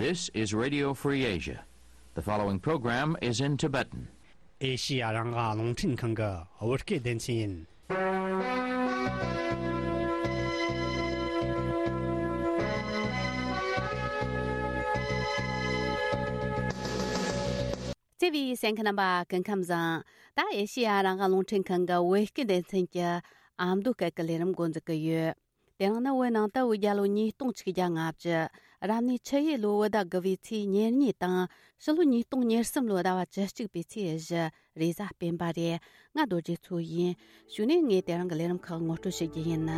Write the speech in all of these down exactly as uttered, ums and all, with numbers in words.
This is Radio Free Asia. The following program is in Tibetan. ཨེ་ཤི་ཡ་རང་དབང་རླུང་འཕྲིན་ཁང་གི་བོད་སྐད་སྡེ་ཚན་ཡིན། བརྩེ་བའི་གསན་མཁན་རྣམ་པ་སྐུ་ཁམས་བཟང་། ད་ཨེ་ཤི་ཡ་རང་དབང་རླུང་འཕྲིན་ཁང་གི་བོད་སྐད་སྡེ་ཚན་གྱི་ཨ་མདོ་སྐད་ཀྱི་ལས་རིམ་འགོ་འཛུགས་ཀྱི་ཡོད། དེ་རིང་ནི་བོད་ནང་དུ་བོད་རྒྱལ་ལོ་ཉིས་སྟོང་ཆིག་བརྒྱ་ལྔ་བཅུ། རབ་གནས་ཆུ་ཡོས་ལོའི་བོད་ཟླ་དགུ་བའི་ཚེས་ཉེར་གཉིས་དང་། ཕྱི་ལོ་ཉིས་སྟོང་ཉེར་གསུམ་ལོའི་ཟླ་བ་བཅུ་གཅིག་པའི་ཚེས་བཞི། རེས་གཟའ་སྤེན་པ་རེད། ང་རྡོ་རྗེ་མཚོ་ཡིན། གཞུག་ནས་ངས་དེ་རིང་གི་ལས་རིམ་ཁག་ངོ་སྤྲོད་ཞུ་རྒྱུ་ཡིན།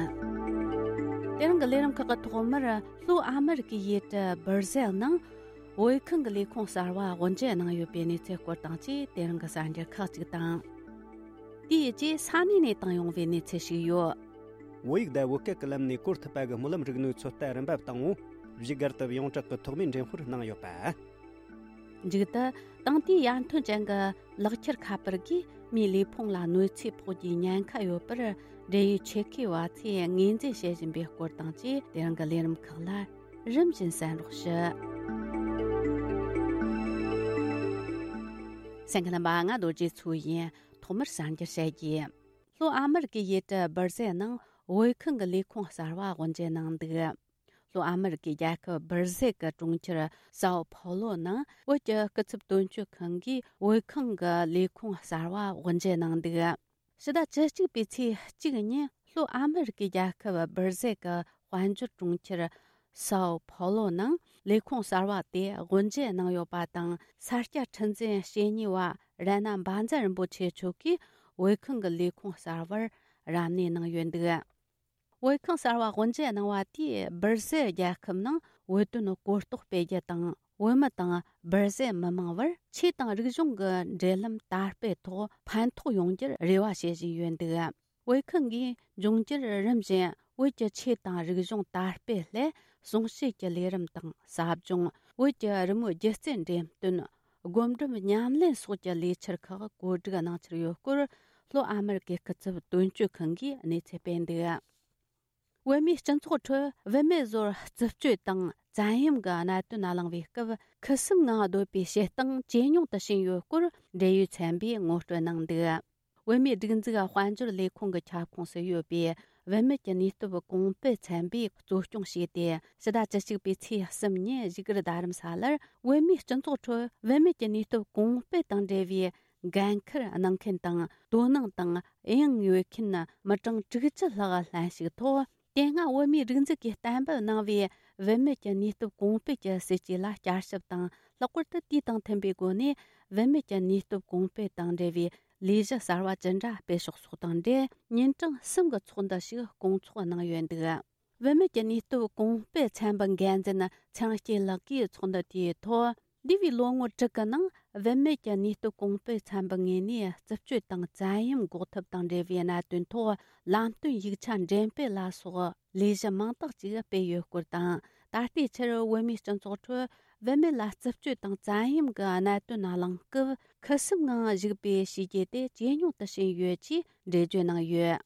དེ་རིང་གི་ལས་རིམ་ཁག་གི་ཐོག་མར་ལྷོ་ཨ་མི་རི་ཀའི་ཡུལ་གྲུ་སྦིར་ཟེལ་ནང་བོད་ཁང་གི་ལས་ཁུངས་གསར་བ་དབུ་འབྱེད་གནང་ཡོད་པའི་གནས་ཚུལ་སྐོར་དང་བཅས། དེ་རིང་གི་གསར་འགྱུར་ཁག་ཅིག་དང་། དེའི་རྗེས་ས་གནས་ནས་བཏང་ཡོང་བའི་གནས་ཚུལ་ཞིག་ཡོད། བོད་ཡིག་དང་བོད་སྐད་ཀྱི་ལམ་ནས་གོ་ཐུབ་པ་གི་སྨོན་ལམ་རིག་ནུས་ཚོད་ལྟ་རིམ་པ་བཏང་ངོ་། བཞུགས་སྒར་དུ་ཡོངས་གྲགས་ཀྱི་ཐོག་མའི་འགྲེམས་སྤེལ་གནང་ཡོད་པ། མཇུག་ཏུ། དེང་དུས་ཡར་ཐོན་ཅན་གྱི་ལག་ཁྱེར་ཁ་པར་གྱིས་མིའི་ལུས་ཕུང་ལ་གནོད་འཚེ་ཕོག་རྒྱུའི་ཉེན་ཁ་ཡོད་པར། འབྲེལ་ཡོད་ཆེད་མཁས་པ་ཚོས་ངོས་འཛིན་བྱེད་བཞིན་པའི་སྐོར་དང་བཅས། དེ་རིང་གི་ལས་རིམ་ཁག་ལ་རིམ་བཞིན་གསན་རོགས་ཞུ། གསན་མཁན་རྣམ་པ། ང་རྡོ་རྗེ་མཚོ་ཡིན། ཐོག་མར་གསར་འགྱུར་བཤད་རྒྱུ། ལྷོ་ཨ་མི་རི་ཀའི་ཡུལ་གྲུ་སྦིར་ཟེལ་ནང་བོད་ཁང་གི་ལས་ཁུངས་གསར་བ་དབུ་འབྱེད་གནང་འདུག། ལྷོ་ཨ་མི་རི་ཀའི་རྒྱལ་ཁབ་སྦིར་ཟེལ་གྱི་གྲོང་ཁྱེར་སའོ་ཕོ་ལོ་ནང་བོད་ཀྱི་སྐུ་ཚབ་དོན་གཅོད་ཁང་གིས་བོད་ཁང་གི་ལས་ཁུངས་གསར་བ་དབུ་འབྱེད་གནང་འདུག། ཕྱི་ཟླ་བཅུ་གཅིག་པའི་ཚེས་གཅིག་ཉིན་ལྷོ་ཨ་མི་རི་ཀའི་རྒྱལ་ཁབ་སྦིར་ཟེལ་གྱི་དཔལ་འབྱོར་གྲོང་ཁྱེར་སའོ་ཕོ་ལོ་ནང་ལས་ཁུངས་གསར་བ་དེ་དབུ་འབྱེད་གནང་ཡོད་པ་དང་། ས་སྐྱ་ཁྲི་འཛིན་བཤེས་གཉེན་བ་རཏྣ་འབའ་འཛེ་རིན་པོ་ཆེ་མཆོག་གིས་བོད་ཁང་གི་ལས་ཁུངས་གསར་བར་རབ་གནས་གནང་ཡོད་འདུག། བོད་ཁང་གསར་བ་དབུ་འབྱེད་གནང་བ་དེས་སྦིར་ཟེལ་རྒྱལ་ཁབ་ནང་བོད་དོན་གོ་རྟོགས་སྤེལ་རྒྱུ་དང་། བོད་མི་དང་སྦིར་ཟེལ་མི་མང་བར་ཆོས་དང་རིག་གཞུང་གི་འབྲེལ་ལམ་དར་སྤེལ་ཐོག་ཕན་ཐོགས་ཡོང་རྒྱུར་རེ་བ་བྱེད་བཞིན་ཡོད་འདུག། བོད་ཁང་གིས་འབྱུང་འགྱུར་རིམ་བཞིན་བོད་ཀྱི་ཆོས་དང་རིག་གཞུང་དར་སྤེལ་སླད་གསུང་བཤད་ཀྱི་ལས་རིམ་དང་། ཟབ་སྦྱོང་། བོད་ཀྱི་རི་མོའི་སྒྱུ་རྩལ་འགྲེམས་སྟོན། སྒོམ་སྒྲུབ་ཉམས་ལེན་སོགས་ཀྱི་ལས་འཆར་ཁག་གོ་སྒྲིག་གནང་འཆར་ཡོད་སྐོར། ལྷོ་ཨ་མི་རི་ཀའི་སྐུ་ཚབ་དོན་གཅོད་ཁང་གིས་གནས་ཚུལ་སྤེལ་འདུག། བོད་མིའི་སྤྱི་ཚོགས་ཁྲོད་བུད་མེད་ཚོར་རྩུབ་སྤྱོད་དང་བཙན་གཡེམ་གྱི་གནད་དོན་གླེང་བའི་སྐབས། ཁུ་སིམ་ངང་སྡོད་པའི་བྱེད་སྟངས་ཇེ་ཉུང་དུ་ཕྱིན་ཡོད་སྐོར། འབྲེལ་ཡོད་ཚན་པས་ངོ་སྤྲོད་གནང་འདུག། བོད་མིའི་སྒྲིག་འཛུགས་དཔལ་འབྱོར་ལས་ཁུངས་ཀྱི་ཁྱབ་ཁོངས་སུ་ཡོད་པའི་བུད་མེད་ཀྱི་ནུས་སྟོབས་གོང་སྤེལ་ཚན་པས་གཙོ་སྐྱོང་བྱས་ཏེ། ཕྱི་ཟླ་བཅུ་གཅིག་པའི་ཚེས་གསུམ་ཉིན་བཞུགས་སྒར་རྡ་རམ་ས་ལར་བོད་མིའི་སྤྱི་ཚོགས་ཁྲོད་བུད་མེད་ཀྱི་ནུས་སྟོབས་གོང་སྤེལ་དང་འབྲེལ་བའི་འགན་འཁུར་གནང་མཁན་དང་། དོ་སྣང་དང་དབྱིངས་ཡོད་མཁན་མི་གྲངས་དྲུག་ཅུ་ལྷག་ལྷན་ཞུགས་ཐོག། དེ་སྔ་བོད་མིའི་སྒྲིག་འཛུགས་ཀྱིས་གཏན་འབེབས་གནང་བའི་བུད་མེད་ཀྱི་ནུས་སྟོབས་གོང་སྤེལ་གྱི་སྲིད་ཇུས་ལ་བསྐྱར་ཞིབ་དང་། ལྷག་པར་དུ་དུས་དང་མཐུན་པའི་སྒོ་ནས་བུད་མེད་ཀྱི་ནུས་སྟོབས་གོང་སྤེལ་དང་འབྲེལ་བའི་ལས་གཞི་གསར་བ་ཇི་འདྲ་སྤེལ་ཕྱོགས་སོགས་དང་འབྲེལ། ཉིན་གྲངས་གསུམ་གྱི་ཚོགས་འདུ་ཞིག་སྐོང་ཚོགས་གནང་ཡོད་འདུག། བུད་མེད་ཀྱི་ནུས་སྟོབས་གོང་སྤེལ་ཚན་པའི་འགན་འཛིན་ཚེ་རིང་སྐྱིད་ལགས་ཀྱིས་ཚོགས་འདུ་དེའི་ཐོག། འདས་པའི་ལོ་ངོ་དྲུག་གི་ནང་བུད་མེད་ཀྱི་ནུས་སྟོབས་གོང་སྤེལ་ཚན་པའི་ངོས་ནས་རྩུབ་སྤྱོད་དང་བཙན་གཡེམ་འགོག་ཐབས་དང་འབྲེལ་བའི་གནད་དོན་ཐོག་ལམ་སྟོན་ཡིག་ཆ་འགྲེམས་སྤེལ་ལ་སོགས་ལས་གཞི་མང་དག་ཅིག་སྤེལ་ཡོད་སྐོར་དང་། ད་ལྟའི་ཆར་བོད་མིའི་སྤྱི་ཚོགས་ཁྲོད་བུད་མེད་ལ་རྩུབ་སྤྱོད་དང་བཙན་གཡེམ་གྱི་གནད་དོན་གླེང་སྐབས། ཁུ་སིམ་ངང་བཞུགས་པའི་བྱས་རྗེས་དེ་ཇེ་ཉུང་དུ་ཕྱིན་ཡོད་ཅེས་འགྲེལ་བརྗོད་གནང་ཡོད།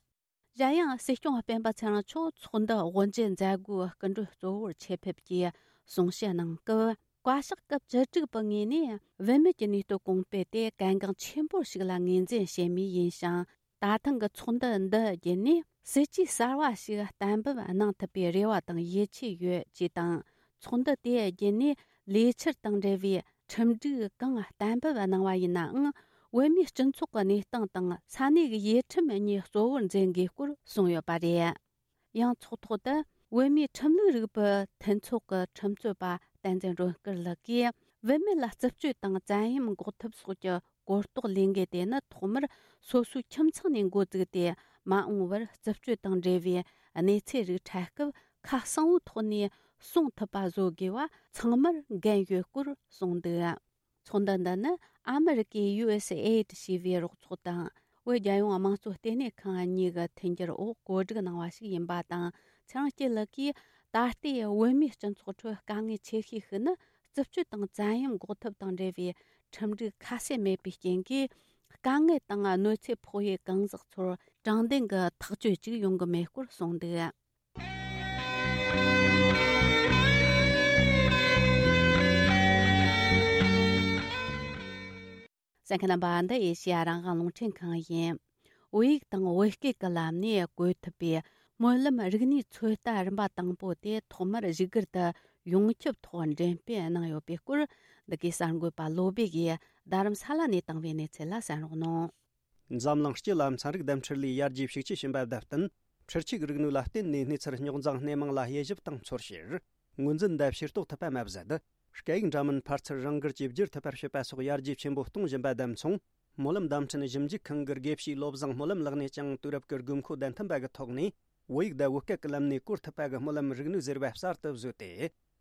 གཞན་ཡང་། སྲིད་སྐྱོང་སྤེན་པ་ཚེ་རིང་མཆོག་ཚོགས་འདུ་དབུ་འབྱེད་མཛད་སྒོའི་སྐུ་མགྲོན་གཙོ་བོར་ཆེད་ཕེབས་ཀྱིས་གསུང་བཤད་གནང་སྐབས། བཀའ་ཤག་སྐབས་བཅུ་དྲུག་པའི་ངོས་ནས་བུད་མེད་ཀྱི་ནུས་སྟོབས་གོང་སྤེལ་དེ་གལ་འགངས་ཆེན་པོ་ཞིག་ལ་ངོས་འཛིན་བྱེད་མུས་ཡིན་ཞིང་། ད་ཐེངས་ཀྱི་ཚོགས་འདུ་འདི་བརྒྱུད་ནས་སྲིད་ཇུས་གསར་བ་ཞིག་གཏན་འབེབས་གནང་ཐུབ་པའི་རེ་བ་དང་ཡིད་ཆེས་ཡོད་ཅེས་དང་། ཚོགས་འདུ་དེ་བརྒྱུད་ནས་ལས་འཆར་དང་འབྲེལ་བའི་ཁྲིམས་སྒྲིག་གང་གཏན་འབེབས་གནང་བ་ཡིན་ནའང་། བོད་མིའི་སྤྱི་ཚོགས་ཀྱི་གནས་སྟངས་དང་ས་གནས་ཀྱི་ཡུལ་ཁྲིམས་གཉིས་གཙོ་བོར་འཛིན་དགོས་སྐོར་གསུངས་ཡོད་པ་རེད། ཡང་ཚོགས་ཐོག་ཏུ་བོད་མིའི་ཁྲིམས་ལུགས་རིག་པའི་མཐུན་ཚོགས་ཀྱི་ཁྲིམས་རྩོད་པ་བསྟན་འཛིན་སྒྲོལ་དཀར་ལགས་ཀྱིས། བུད་མེད་ལ་རྩུབ་སྤྱོད་དང་བཙན་གཡེམ་འགོག་ཐབས་སོགས་ཀྱི་གོ་རྟོགས་ལས་འགུལ་དེ་ནི་ཐོག་མར་སོ་སོའི་ཁྱིམ་ཚང་ནས་འགོ་བཙུགས་ཏེ། མ་འོངས་པར་རྩུབ་སྤྱོད་དང་འབྲེལ་བའི་གནས་ཚུལ་རིགས་འཕྲལ་སྐབས་ཁ་གསལ་བོའི་ཐོག་ནས་གསུང་ཐུབ་པ་བཟོ་དགོས་པ་ཚང་མར་འགན་ཡོད་སྐོར་གསུངས་འདུག། ཚོགས་འདུ་འདི་ནི་ཨ་མི་རི་ཀའི་ཡུ་ཨེས་ཨེ་ཌི་ཞེས་པའི་རོགས་ཚོགས་དང་། བོད་རྒྱལ་ཡོངས་དམངས་གཙོ་ལྟེ་གནས་ཁང་གཉིས་ཀྱི་མཐུན་འགྱུར་འོག་གོ་སྒྲིག་གནང་བ་ཞིག་ཡིན་པ་དང་། ཚེ་རིང་སྐྱིད་ལགས་ཀྱིས། ད་ལྟའི་བོད་མིའི་སྤྱི་ཚོགས་ཁྲོད་དཀའ་ངལ་ཆེ་ཤོས་ཤིག་ནི། རྩུབ་སྤྱོད་དང་བཙན་གཡེམ་འགོག་ཐབས་དང་འབྲེལ་བའི་ཁྲིམས་སྒྲིག་ཁ་གསལ་མེད་པའི་རྐྱེན་གྱིས། དཀའ་ངལ་དང་གནོད་འཚེ་ཕོག་ཡུལ་གང་ཟག་ཚོར་དྲང་བདེན་གྱི་ཐག་གཅོད་ཅིག་ཡོང་གི་མེད་སྐོར་གསུངས་འདུག། གསན་མཁན་རྣམ་པ། འདི་ཨེ་ཤེ་ཡ་རང་དབང་རླུང་འཕྲིན་ཁང་ཡིན། བོད་ཡིག་དང་བོད་སྐད་ཀྱི་ལམ་ནས་བཀོད་ཐུབ་པའི་སྨོན་ལམ་རིག་གནས་ཚོད་ལྟ་རིམ་པ་དང་པོ་དེ་ཐོག་མར་བཞུགས་སྒར་དུ་ཡོངས་ཁྱབ་ཐོག་འགྲེམས་སྤེལ་གནང་ཡོད་པའི་སྐོར། འདི་གའི་གསར་འགོད་པ་བློ་བྷེ་ཡིས་རྡ་རམ་ས་ལ་ནས་བཏང་བའི་གནས་ཚུལ་ལ་གསན་རོགས་གནང་། འཛམ་གླིང་སྤྱི་ལ་ཚན་རིག་བསྡམས་འཕྲུལ་ལས་ཡར་རྒྱས་ཤུགས་ཆེ་ཕྱིན་པ་དང་བསྟུན། འཕྲུལ་ཆས་རིག་ནུས་ལ་བརྟེན་ནས་གནས་ཚུལ་རྙོག་འཛིང་སྣེ་མང་ལ་དབྱེ་ཞིབ་དང་ཚོར་བཤེར། ངོས་འཛིན་དང་ཤེས་རྟོགས་ཐུབ་པ་མ་ཟད། སྐད་ཡིག་འདྲ་མིན་ཕར་ཚུར་རང་འགུལ་གྱིས་བསྒྱུར་ཐུབ་པར་བྱེད་པ་སོགས་ཡར་རྒྱས་ཆེན་པོ་གཏོང་བཞིན་པ་དང་མཚུངས། སྨོན་ལམ་བརྡ་འཕྲིན་ཞིབ་འཇུག་ཁང་གི་དགེ་བཤེས་བློ་བཟང་སྨོན་ལམ་ལགས་ནས་ཀྱང་དུས་རབས་ཀྱི་དགོས་མཁོ་དང་མཐུན་པ་གི་ཐོག་ནས། བོད་ཡིག་དང་བོད་སྐད་ཀྱི་ལམ་ནས་བཀོལ་ཐུབ་པ་གི་སྨོན་ལམ་རིག་ནུས་ཟེར་བ་གསར་དུ་བཟོས་ཏེ།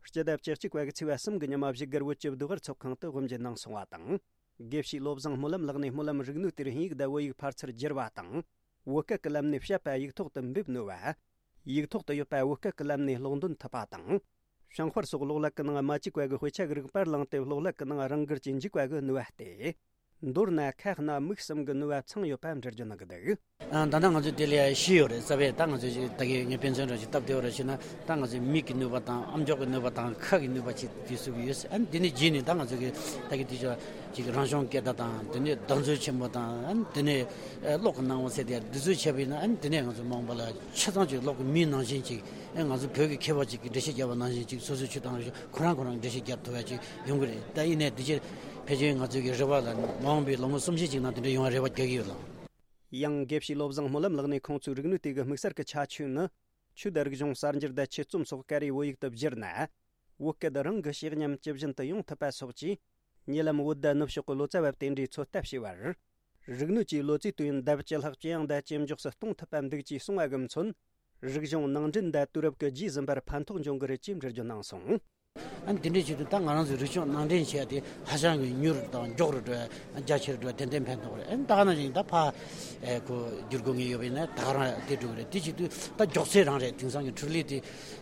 སྤྱི་ཟླ་བཅུ་གཅིག་པ་གི་ཚེས་པ་གསུམ་གྱི་ཉི་མ་བཞུགས་སྒར་བོད་ཀྱི་བདེ་བར་ཚོགས་ཁང་དུ་དབུ་འབྱེད་གནང་སོང་བ་དང་། དགེ་བཤེས་བློ་བཟང་སྨོན་ལམ་ལགས་ནས་སྨོན་ལམ་རིག་ནུས་དེར་དབྱིན་ཡིག་དང་བོད་ཡིག་ཕར་ཚུར་བསྒྱུར་བ་དང་། བོད་སྐད་ཀྱི་ལམ་ནས་བཤད་པ་ཡིག་ཐོག་ཏུ་འབེབས་ནུས་པ། ཡིག་ཐོག་ཏུ་ཡོད་པ་བོད་སྐད་ཀྱི་ལམ་ནས་ཀློག་འདོན་ཐུབ་པ་དང་། བྱང་ཤར་སོགས་གློག་ཀླད་ཀྱི་ནང་མ་བཅུག་པ་གི་དཔེ་ཆ་གི་རིགས་པར་བླངས་ཏེ་གློག་ཀླད་ཀྱི་ནང་རང་འགུལ་གྱིས་འཇུག་པ་གི་ནུས་པ་སྟེ། མདོར་ན་ཁ་སྣ་མིག་གསུམ་གྱི་ནུས་པ་ཚང་ཡོད་པ་འགྲེལ་བརྗོད་གནང་གི་འདུག་ཨ། ད་ལྟ་ང་ཚོས་དེ་ལས་ཤེས་ཡོད་རེད། རྩ་བའི་ད་ང་ཚོས་ད་གི་ངས་དཔེ་མཚོན་རང་ཞིག་སྟབས་བདེ་བ་རེ་བྱས་ན། ད་ང་ཚོའི་མིག་གི་ནུས་པ་དང་ཨམ་ཅོག་གི་ནུས་པ་དང་ཁ་གི་ནུས་པ་ཅིག་དེ་ཚུགས་ཀྱི་ཡོད། ཨ་ནི་དེ་ནས་རྗེས་ནས་ད་ང་ཚོ་གི་ད་གི་དེ་ཚོ་ཅིག་རང་བྱུང་སྐད་བརྡ་དང་། དེ་ནས་བརྡ་མཛོད་ཆེན་པོ་དང་། ཨ་ནི་དེ་ནས་ཨ་གློག་གི་སྣང་བ་ཟེར་དེ་འདི་ཚོ་བྱས་པ་ཡིན་ན། ཨ་ནི་དེ་ནས་ང་ཚོ་མ་འོངས་པ་ལ་ཆ་ཚང་ཅིག་གློག་གི་མིའི་ནང་བཞིན་ཅིག་ཨ་ང་ཚོ་བོད་ཀྱི་མཁས་པ་ཅིག་གིས་འགྲེལ་བཤད་བརྒྱབ་པ་ནང་བཞིན་ཅིག་སོ་སོའི་ཆོས་དང་རིག་གཞུང་ཁོ་རང་ཁོ་རང་འགྲེལ་བཤད་བརྒྱབ་ཐུབ་ཡ་ཅིག་ཡོང་གི་རེད། ད་ཡིན་ནའི་འདི་ཕྱིར་ཕལ་ཆེར་ང་ཚོའི་གི་རེ་བ་ལ་མ་འོངས་པའི་ལོ་ངོ་སུམ་བཞི་ཅིག་ནང་དེ་འདྲ་ཡོང་བ་རེ་བ་རྒྱག་གི་ཡོད་ལགས། ཡང་དགེ་བཤེས་བློ་བཟང་སྨོན་ལམ་ལགས་ནས་ཁོང་ཚོའི་རིག་ནུས་དེ་གི་དམིགས་བསལ་གྱི་ཁྱད་ཆོས་ནི། ཆོས་དང་རིག་གཞུང་གསར་འགྱུར་དང་ཆོས་རྩོམ་སོགས་སྐད་རིགས་བོད་ཡིག་ཏུ་བསྒྱུར་ན། བོད་སྐད་རང་གི་ཤེས་ཉམས་ཇི་བཞིན་དུ་ཡོང་ཐུབ་པ་སོགས་ཀྱིས། ཉེ་ལམ་བོད་ཟླ་ནུབ་ཕྱོགས་ཀྱི་ལོ་ཙཱ་བ་དེ་འདྲའི་ཚོད་ལྟ་བྱས་པར། རིག་ནུས་ཀྱིས་ལོ་ཙཱའི་དུས་ཡུན་ལྡབ་བཅུ་ལྷག་ཇེ་ཡང་དང་ཇེ་མགྱོགས་སུ་གཏོང་ཐུབ་པ་འདུག་ཅེས་གསུངས་པ་གི་མཚོན། རིག་གཞུང་ནང་འདྲེན་དང་དུས་རབས་ཀྱི་རྗེས་ཟིན་པར་ཕན་ཐོགས་འབྱུང་གི་རེད་ཅེས་འགྲེལ་བརྗོད་གནང་སོང་། ཨ་ནི་དེ་འདྲའི་ཆེད་དུ་ད་ང་རང་ཚོའི་རིག་གཞུང་ནང་འདྲེན་བྱས་ཏེ་ཧ་ཅང་གི་མྱུར་དང་མགྱོགས་རུ་འགྲོ་བ། རྒྱ་ཆེར་འགྲོ་བ་ཏན་ཏན་ཕན་ཐོགས་རེད། ཨ་ནི་ད་ག་ནང་བཞིན་ད་ཕ་ཨེ་ཁོ་བསྒྱུར་དགོས་ངེས་ཡོད་པ་ཡིན་ན་ད་ག་རང་དེ་འགྲོ་གི་རེད། དེ་ཆེད་དུ་ད་མགྱོགས་ཚད་རང་རེད། དེང་སང་གི་འཕྲུལ་ལས་དེ་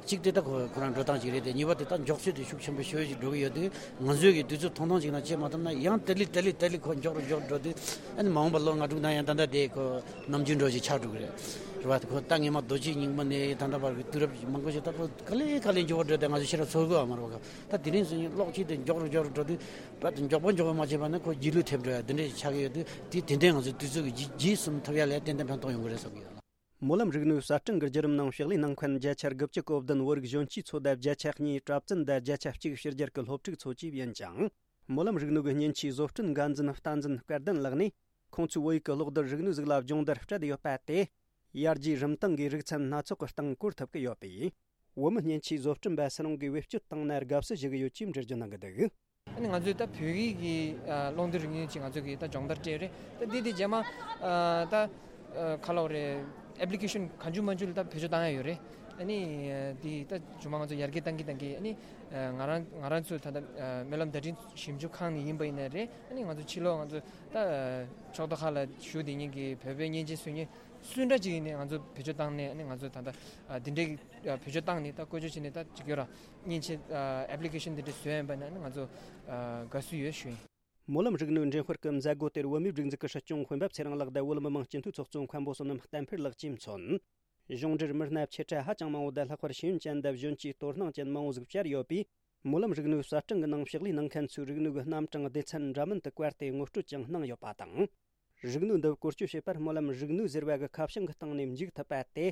གཅིག་དེ་ད་ཁོ་ཁོ་རང་འགྲོ་སྟངས་གཅིག་རེད་དེ། གཉིས་པ་དེ་ད་མགྱོགས་ཚད་དེ་ཤུགས་ཆེན་པོ་ཞེ་པོ་ཅིག་འགྲོ་གི་ཡོད་དུས། ང་ཚོས་ཀྱི་དུས་ཚོད་ཐུང་ཐུང་ཅིག་ནང་བྱེད་མ་ཐུབ་ན་ཡང་དེ་ལས་དེ་ལས་དེ་ལས་ཁོ་མགྱོགས་རུ་མགྱོགས་རུ་འགྲོ་དུས། ཨ་ནི་མ་འོངས་པ་ལོ་ལྔ་དྲུག་ནང་ཡང་ད་ལྟ་དེ་ཁོ་ནམ་རྒྱུན་འགྲོ་ཞིག་ཆགས་འགྲོ་གི་རེད། རེད་བ། ཁོ་ད་སྔས་མ་རྡོ་རྗེ་རྙིང་མ་ནས་ད་ལྟ་བར་གྱི་དུས་རབས་མང་པོ་ཞིག་ད་ཁོ་ག་ལེ་ག་ལེ་མགྱོགས་པོ་འགྲོ་དེ་ང་ཚོ་ཤེས་རབ་ཚོར་གི་ཡོད་མ་རེད་བ། ད་དེ་རིང་སང་ཉིན་གློག་ཆས་དེ་མགྱོགས་རུ་མགྱོགས་རུ་འགྲོ་དུས། རྦད་དེ་མགྱོགས་པོ་མགྱོགས་པོ་མ་བྱས་པ་ན་ཁོ་རྗེས་ལུས་ཐེབས་འགྲོ་ཡ་དེ་འདྲ་ཞིག་ཆགས་ཀྱི་ཡོད་དུས། དེ་དེ་འདྲའི་ང་ཚོའི་དུས་ཚོད་ཀྱི་རྗེས་རྗེས་ཟིན་ཐུབ་ཡ་ལ་ཏན་ཏན་ཕན་ཐོགས་ཡོང་གི་རེད་བསམ་གྱི་ཡོད། སྨོན་ལམ་རིག་ནུས་གསར་སྐྲུན་གྱི་བརྒྱུད་རིམ་ནང་ཕྱག་ལས་གནང་མཁན་བརྒྱ་ཆ་དགུ་བཅུ་གོ་བདུན། བོད་རིགས་གཞོན་སྐྱེས་ཚོ་དང་བརྒྱ་ཆ་གཉིས། གྲྭ་བཙུན་དང་བརྒྱ་ཆ་གཅིག་ཕྱི་རྒྱལ་གྱི་སློབ་ཕྲུག་ཚོ་བཅས་ཡིན་ཅིང་། སྨོན་ལམ་རིག་ནུས་ཀྱི་མཉེན་ཆས་བཟོ་སྐྲུན་འགན་འཛིན་བསྟན་འཛིན་སྐལ་ལྡན་ལགས་ནས། ཁོང་ཚོའི་བོད་ཡིག་གི་གློག་རྡུལ་རིག་ནུས་ཟིག་ལ་སྦྱོང་བརྡར་སྤྲད་ཡོད་པ་དེ། ཡར་རྒྱས་རིམ་སྟེང་གི་རིག་ཚན་སྣ་ཚོགས་ཀྱི་སྟེང་བཀོལ་ཐུབ་ཀྱི་ཡོད་པས། བོད་མི་མཉེན་ཆས་བཟོ་སྐྲུན་པ་སུ་རུང་གིས་བེད་སྤྱོད་བཏང་ན་དགའ་བསུ་ཞུ་གི་ཡོད་ཅེས་འགྲེལ་བརྗོད་གནང་གི་འདུག་ཨ་ནི་ང་ཚོས་ད་བོད་ཡིག་གི་ཨ་གློག་རྡུལ་རིག་ནུས་ཅིག་ང་ཚོ་གིས་ད་སྦྱོང་བརྡར་སྤྲད་ཡོད་རེད། ད་འདི་དེ་རྗེས་མ་ཨ་ད་ཨ་ག་ལབ་དགོས་རེད། ཨེབ་ལི་ཀེ་ཤན་གང་བྱུང་མང་བྱུང་ལ་ད་བེད་སྤྱོད་བཏང་ཡ་ཡོད་རེད། ཨ་ནི་ཨ་འདི་ད་རྗེས་མ་ང་ཚོ་ཡར་རྒྱས་བཏང་གི་བཏང་གི། ཨ་ནི་ཨ་ང་རང་ང་རང་ཚོ་ད་ལྟ་ཨ་སྨོན་ལམ་བརྡ་འཕྲིན་ཞིབ་འཇུག་ཁང་ནས་ཡིན་པ་ཡིན་ན་རེད། ཨ་ནི་ང་ཚོ་ཕྱི་ལོགས་ང་ཚོ་ད་ཨ་ཕྱོགས་མཐའ་ཁག་ལ་བཞུགས་བསྡད་མཁན་གྱི་བོད་པའི་མཉེན་ཆས་བཟོ་མཁན་སུ་འདྲ་ཅིག་ཡིན་ནའི་ང་ཚོ་བེད་སྤྱོད་བཏང་ནས། ཨ་ནི་ང་ཚོ་ད་ལྟ་ཨ་འདི་འདྲའི་ཨ་བེད་སྤྱོད་བཏང་ནས་ད་བཀོལ་སྤྱོད་བྱས་ནས་ད་ཅིག་ཡོད་ར། མཉེན་ཆས་ཨ་ཨེབ་ལི་ཀེ་ཤན་འདི་འདྲ་བཟོས་ཡིན་པ་ན་ང་ཚོ་ཨ་དགའ་བསུ་ཡོད་ཞུ་ཡིན། སྨོན་ལམ་རིག་ནུས་འགྲེམས་སྤེལ་གྱི་མཛད་སྒོ་དེར་བོད་མིའི་སྒྲིག་འཛུགས་ཀྱི་སྲིད་སྐྱོང་འོད་འབབ་ཚེ་རིང་ལགས་དང་བོད་མི་མང་སྤྱི་འཐུས་ཚོགས་གཙོ་མཁན་པོ་བསོད་ནམས་བསྟན་འཕེལ་ལགས་བཅས་མཚོན། གཞུང་འབྲེལ་མི་སྣ་ཆེ་ཕྲ་ཧ་ཅང་མང་བོ་དང་ལྷག་པར་ཤེས་ཡོན་ཅན་དང་གཞོན་སྐྱེས་དོ་སྣང་ཅན་མང་བོ་ཟིག་བཅར་ཡོད་པས། སྨོན་ལམ་རིག་ནུས་གསར་སྐྲུན་གྱི་ནང་ཕྱག་ལས་གནང་མཁན་ཚོའི་རིག་ནུས་ཀྱི་རྣམ་གྲངས་སྡེ་ཚན་འདྲ་མིན་དུ་བཀར་ཏེ་ངོ་སྤྲོད་ཀྱང་གནང་ཡོད་པ་དང་། རིག་ནུས་འདི་བཀོལ་སྤྱོད་བྱེད་པར་སྨོན་ལམ་རིག་ནུས་ཟེར་བ་གི་ཁ་བྱང་གི་སྟེང་ནས་འཇུག་ཐུབ་པ་དེ།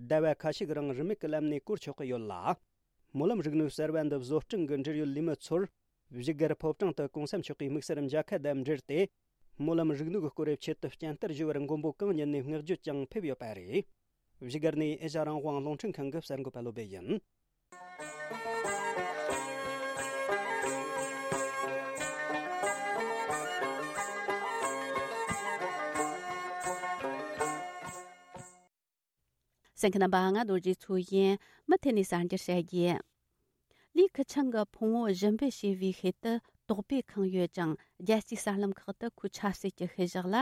ཟླ་བ་ཁ་ཤས་ཀྱི་རིང་རིན་མེད་ཀྱི་ལམ་ནས་བཀོལ་ཆོག་གི་ཡོད་ལ། སྨོན་ལམ་རིག་ནུས་གསར་བ་འདི་བཟོ་སྐྲུན་གྱི་འབྲེལ་ཡོད་ལས་མི་ཚོར། བཞུགས་སྒར་ཕོ་བྲང་དུ་གོང་ས་མཆོག་གིས་དམིགས་བསལ་མཇལ་ཁ་དང་འབྲེལ་ཏེ། སྨོན་ལམ་རིག་ནུས་ཀྱི་སྐོར་ཆེད་དུ་བསྐྱར་དར་ཞུ་བར་མགོན་པོ་གང་ཉིད་ནས་བསྔགས་བརྗོད་ཀྱང་ཕེབས་ཡོད་པ་རེད། བཞུགས་སྒར་ནས་ཨེ་ཤ་རང་དབང་རླུང་འཕྲིན་ཁང་གི་གསར་འགོད་པ་བློ་བྷེ་ཡིན། གསན་མཁན་རྣམ་པ། ང་རྡོ་རྗེ་མཚོ་ཡིན། མུ་མཐུད་ནས་གསར་འགྱུར་བཤད་རྒྱུ། ལི་ཁུ་ཆང་གི་ཕུང་བོ་ཞིབ་འབེད་བྱས་པའི་ཤུལ་དུ་དོགས་པས་ཁེངས་ཡོད་ཅིང་། རྒྱལ་སྤྱིའི་གསར་ལམ་ཁག་ཏུ་ཁོའི་ཆབ་སྲིད་ཀྱི་ཤུལ་བཞག་ལ་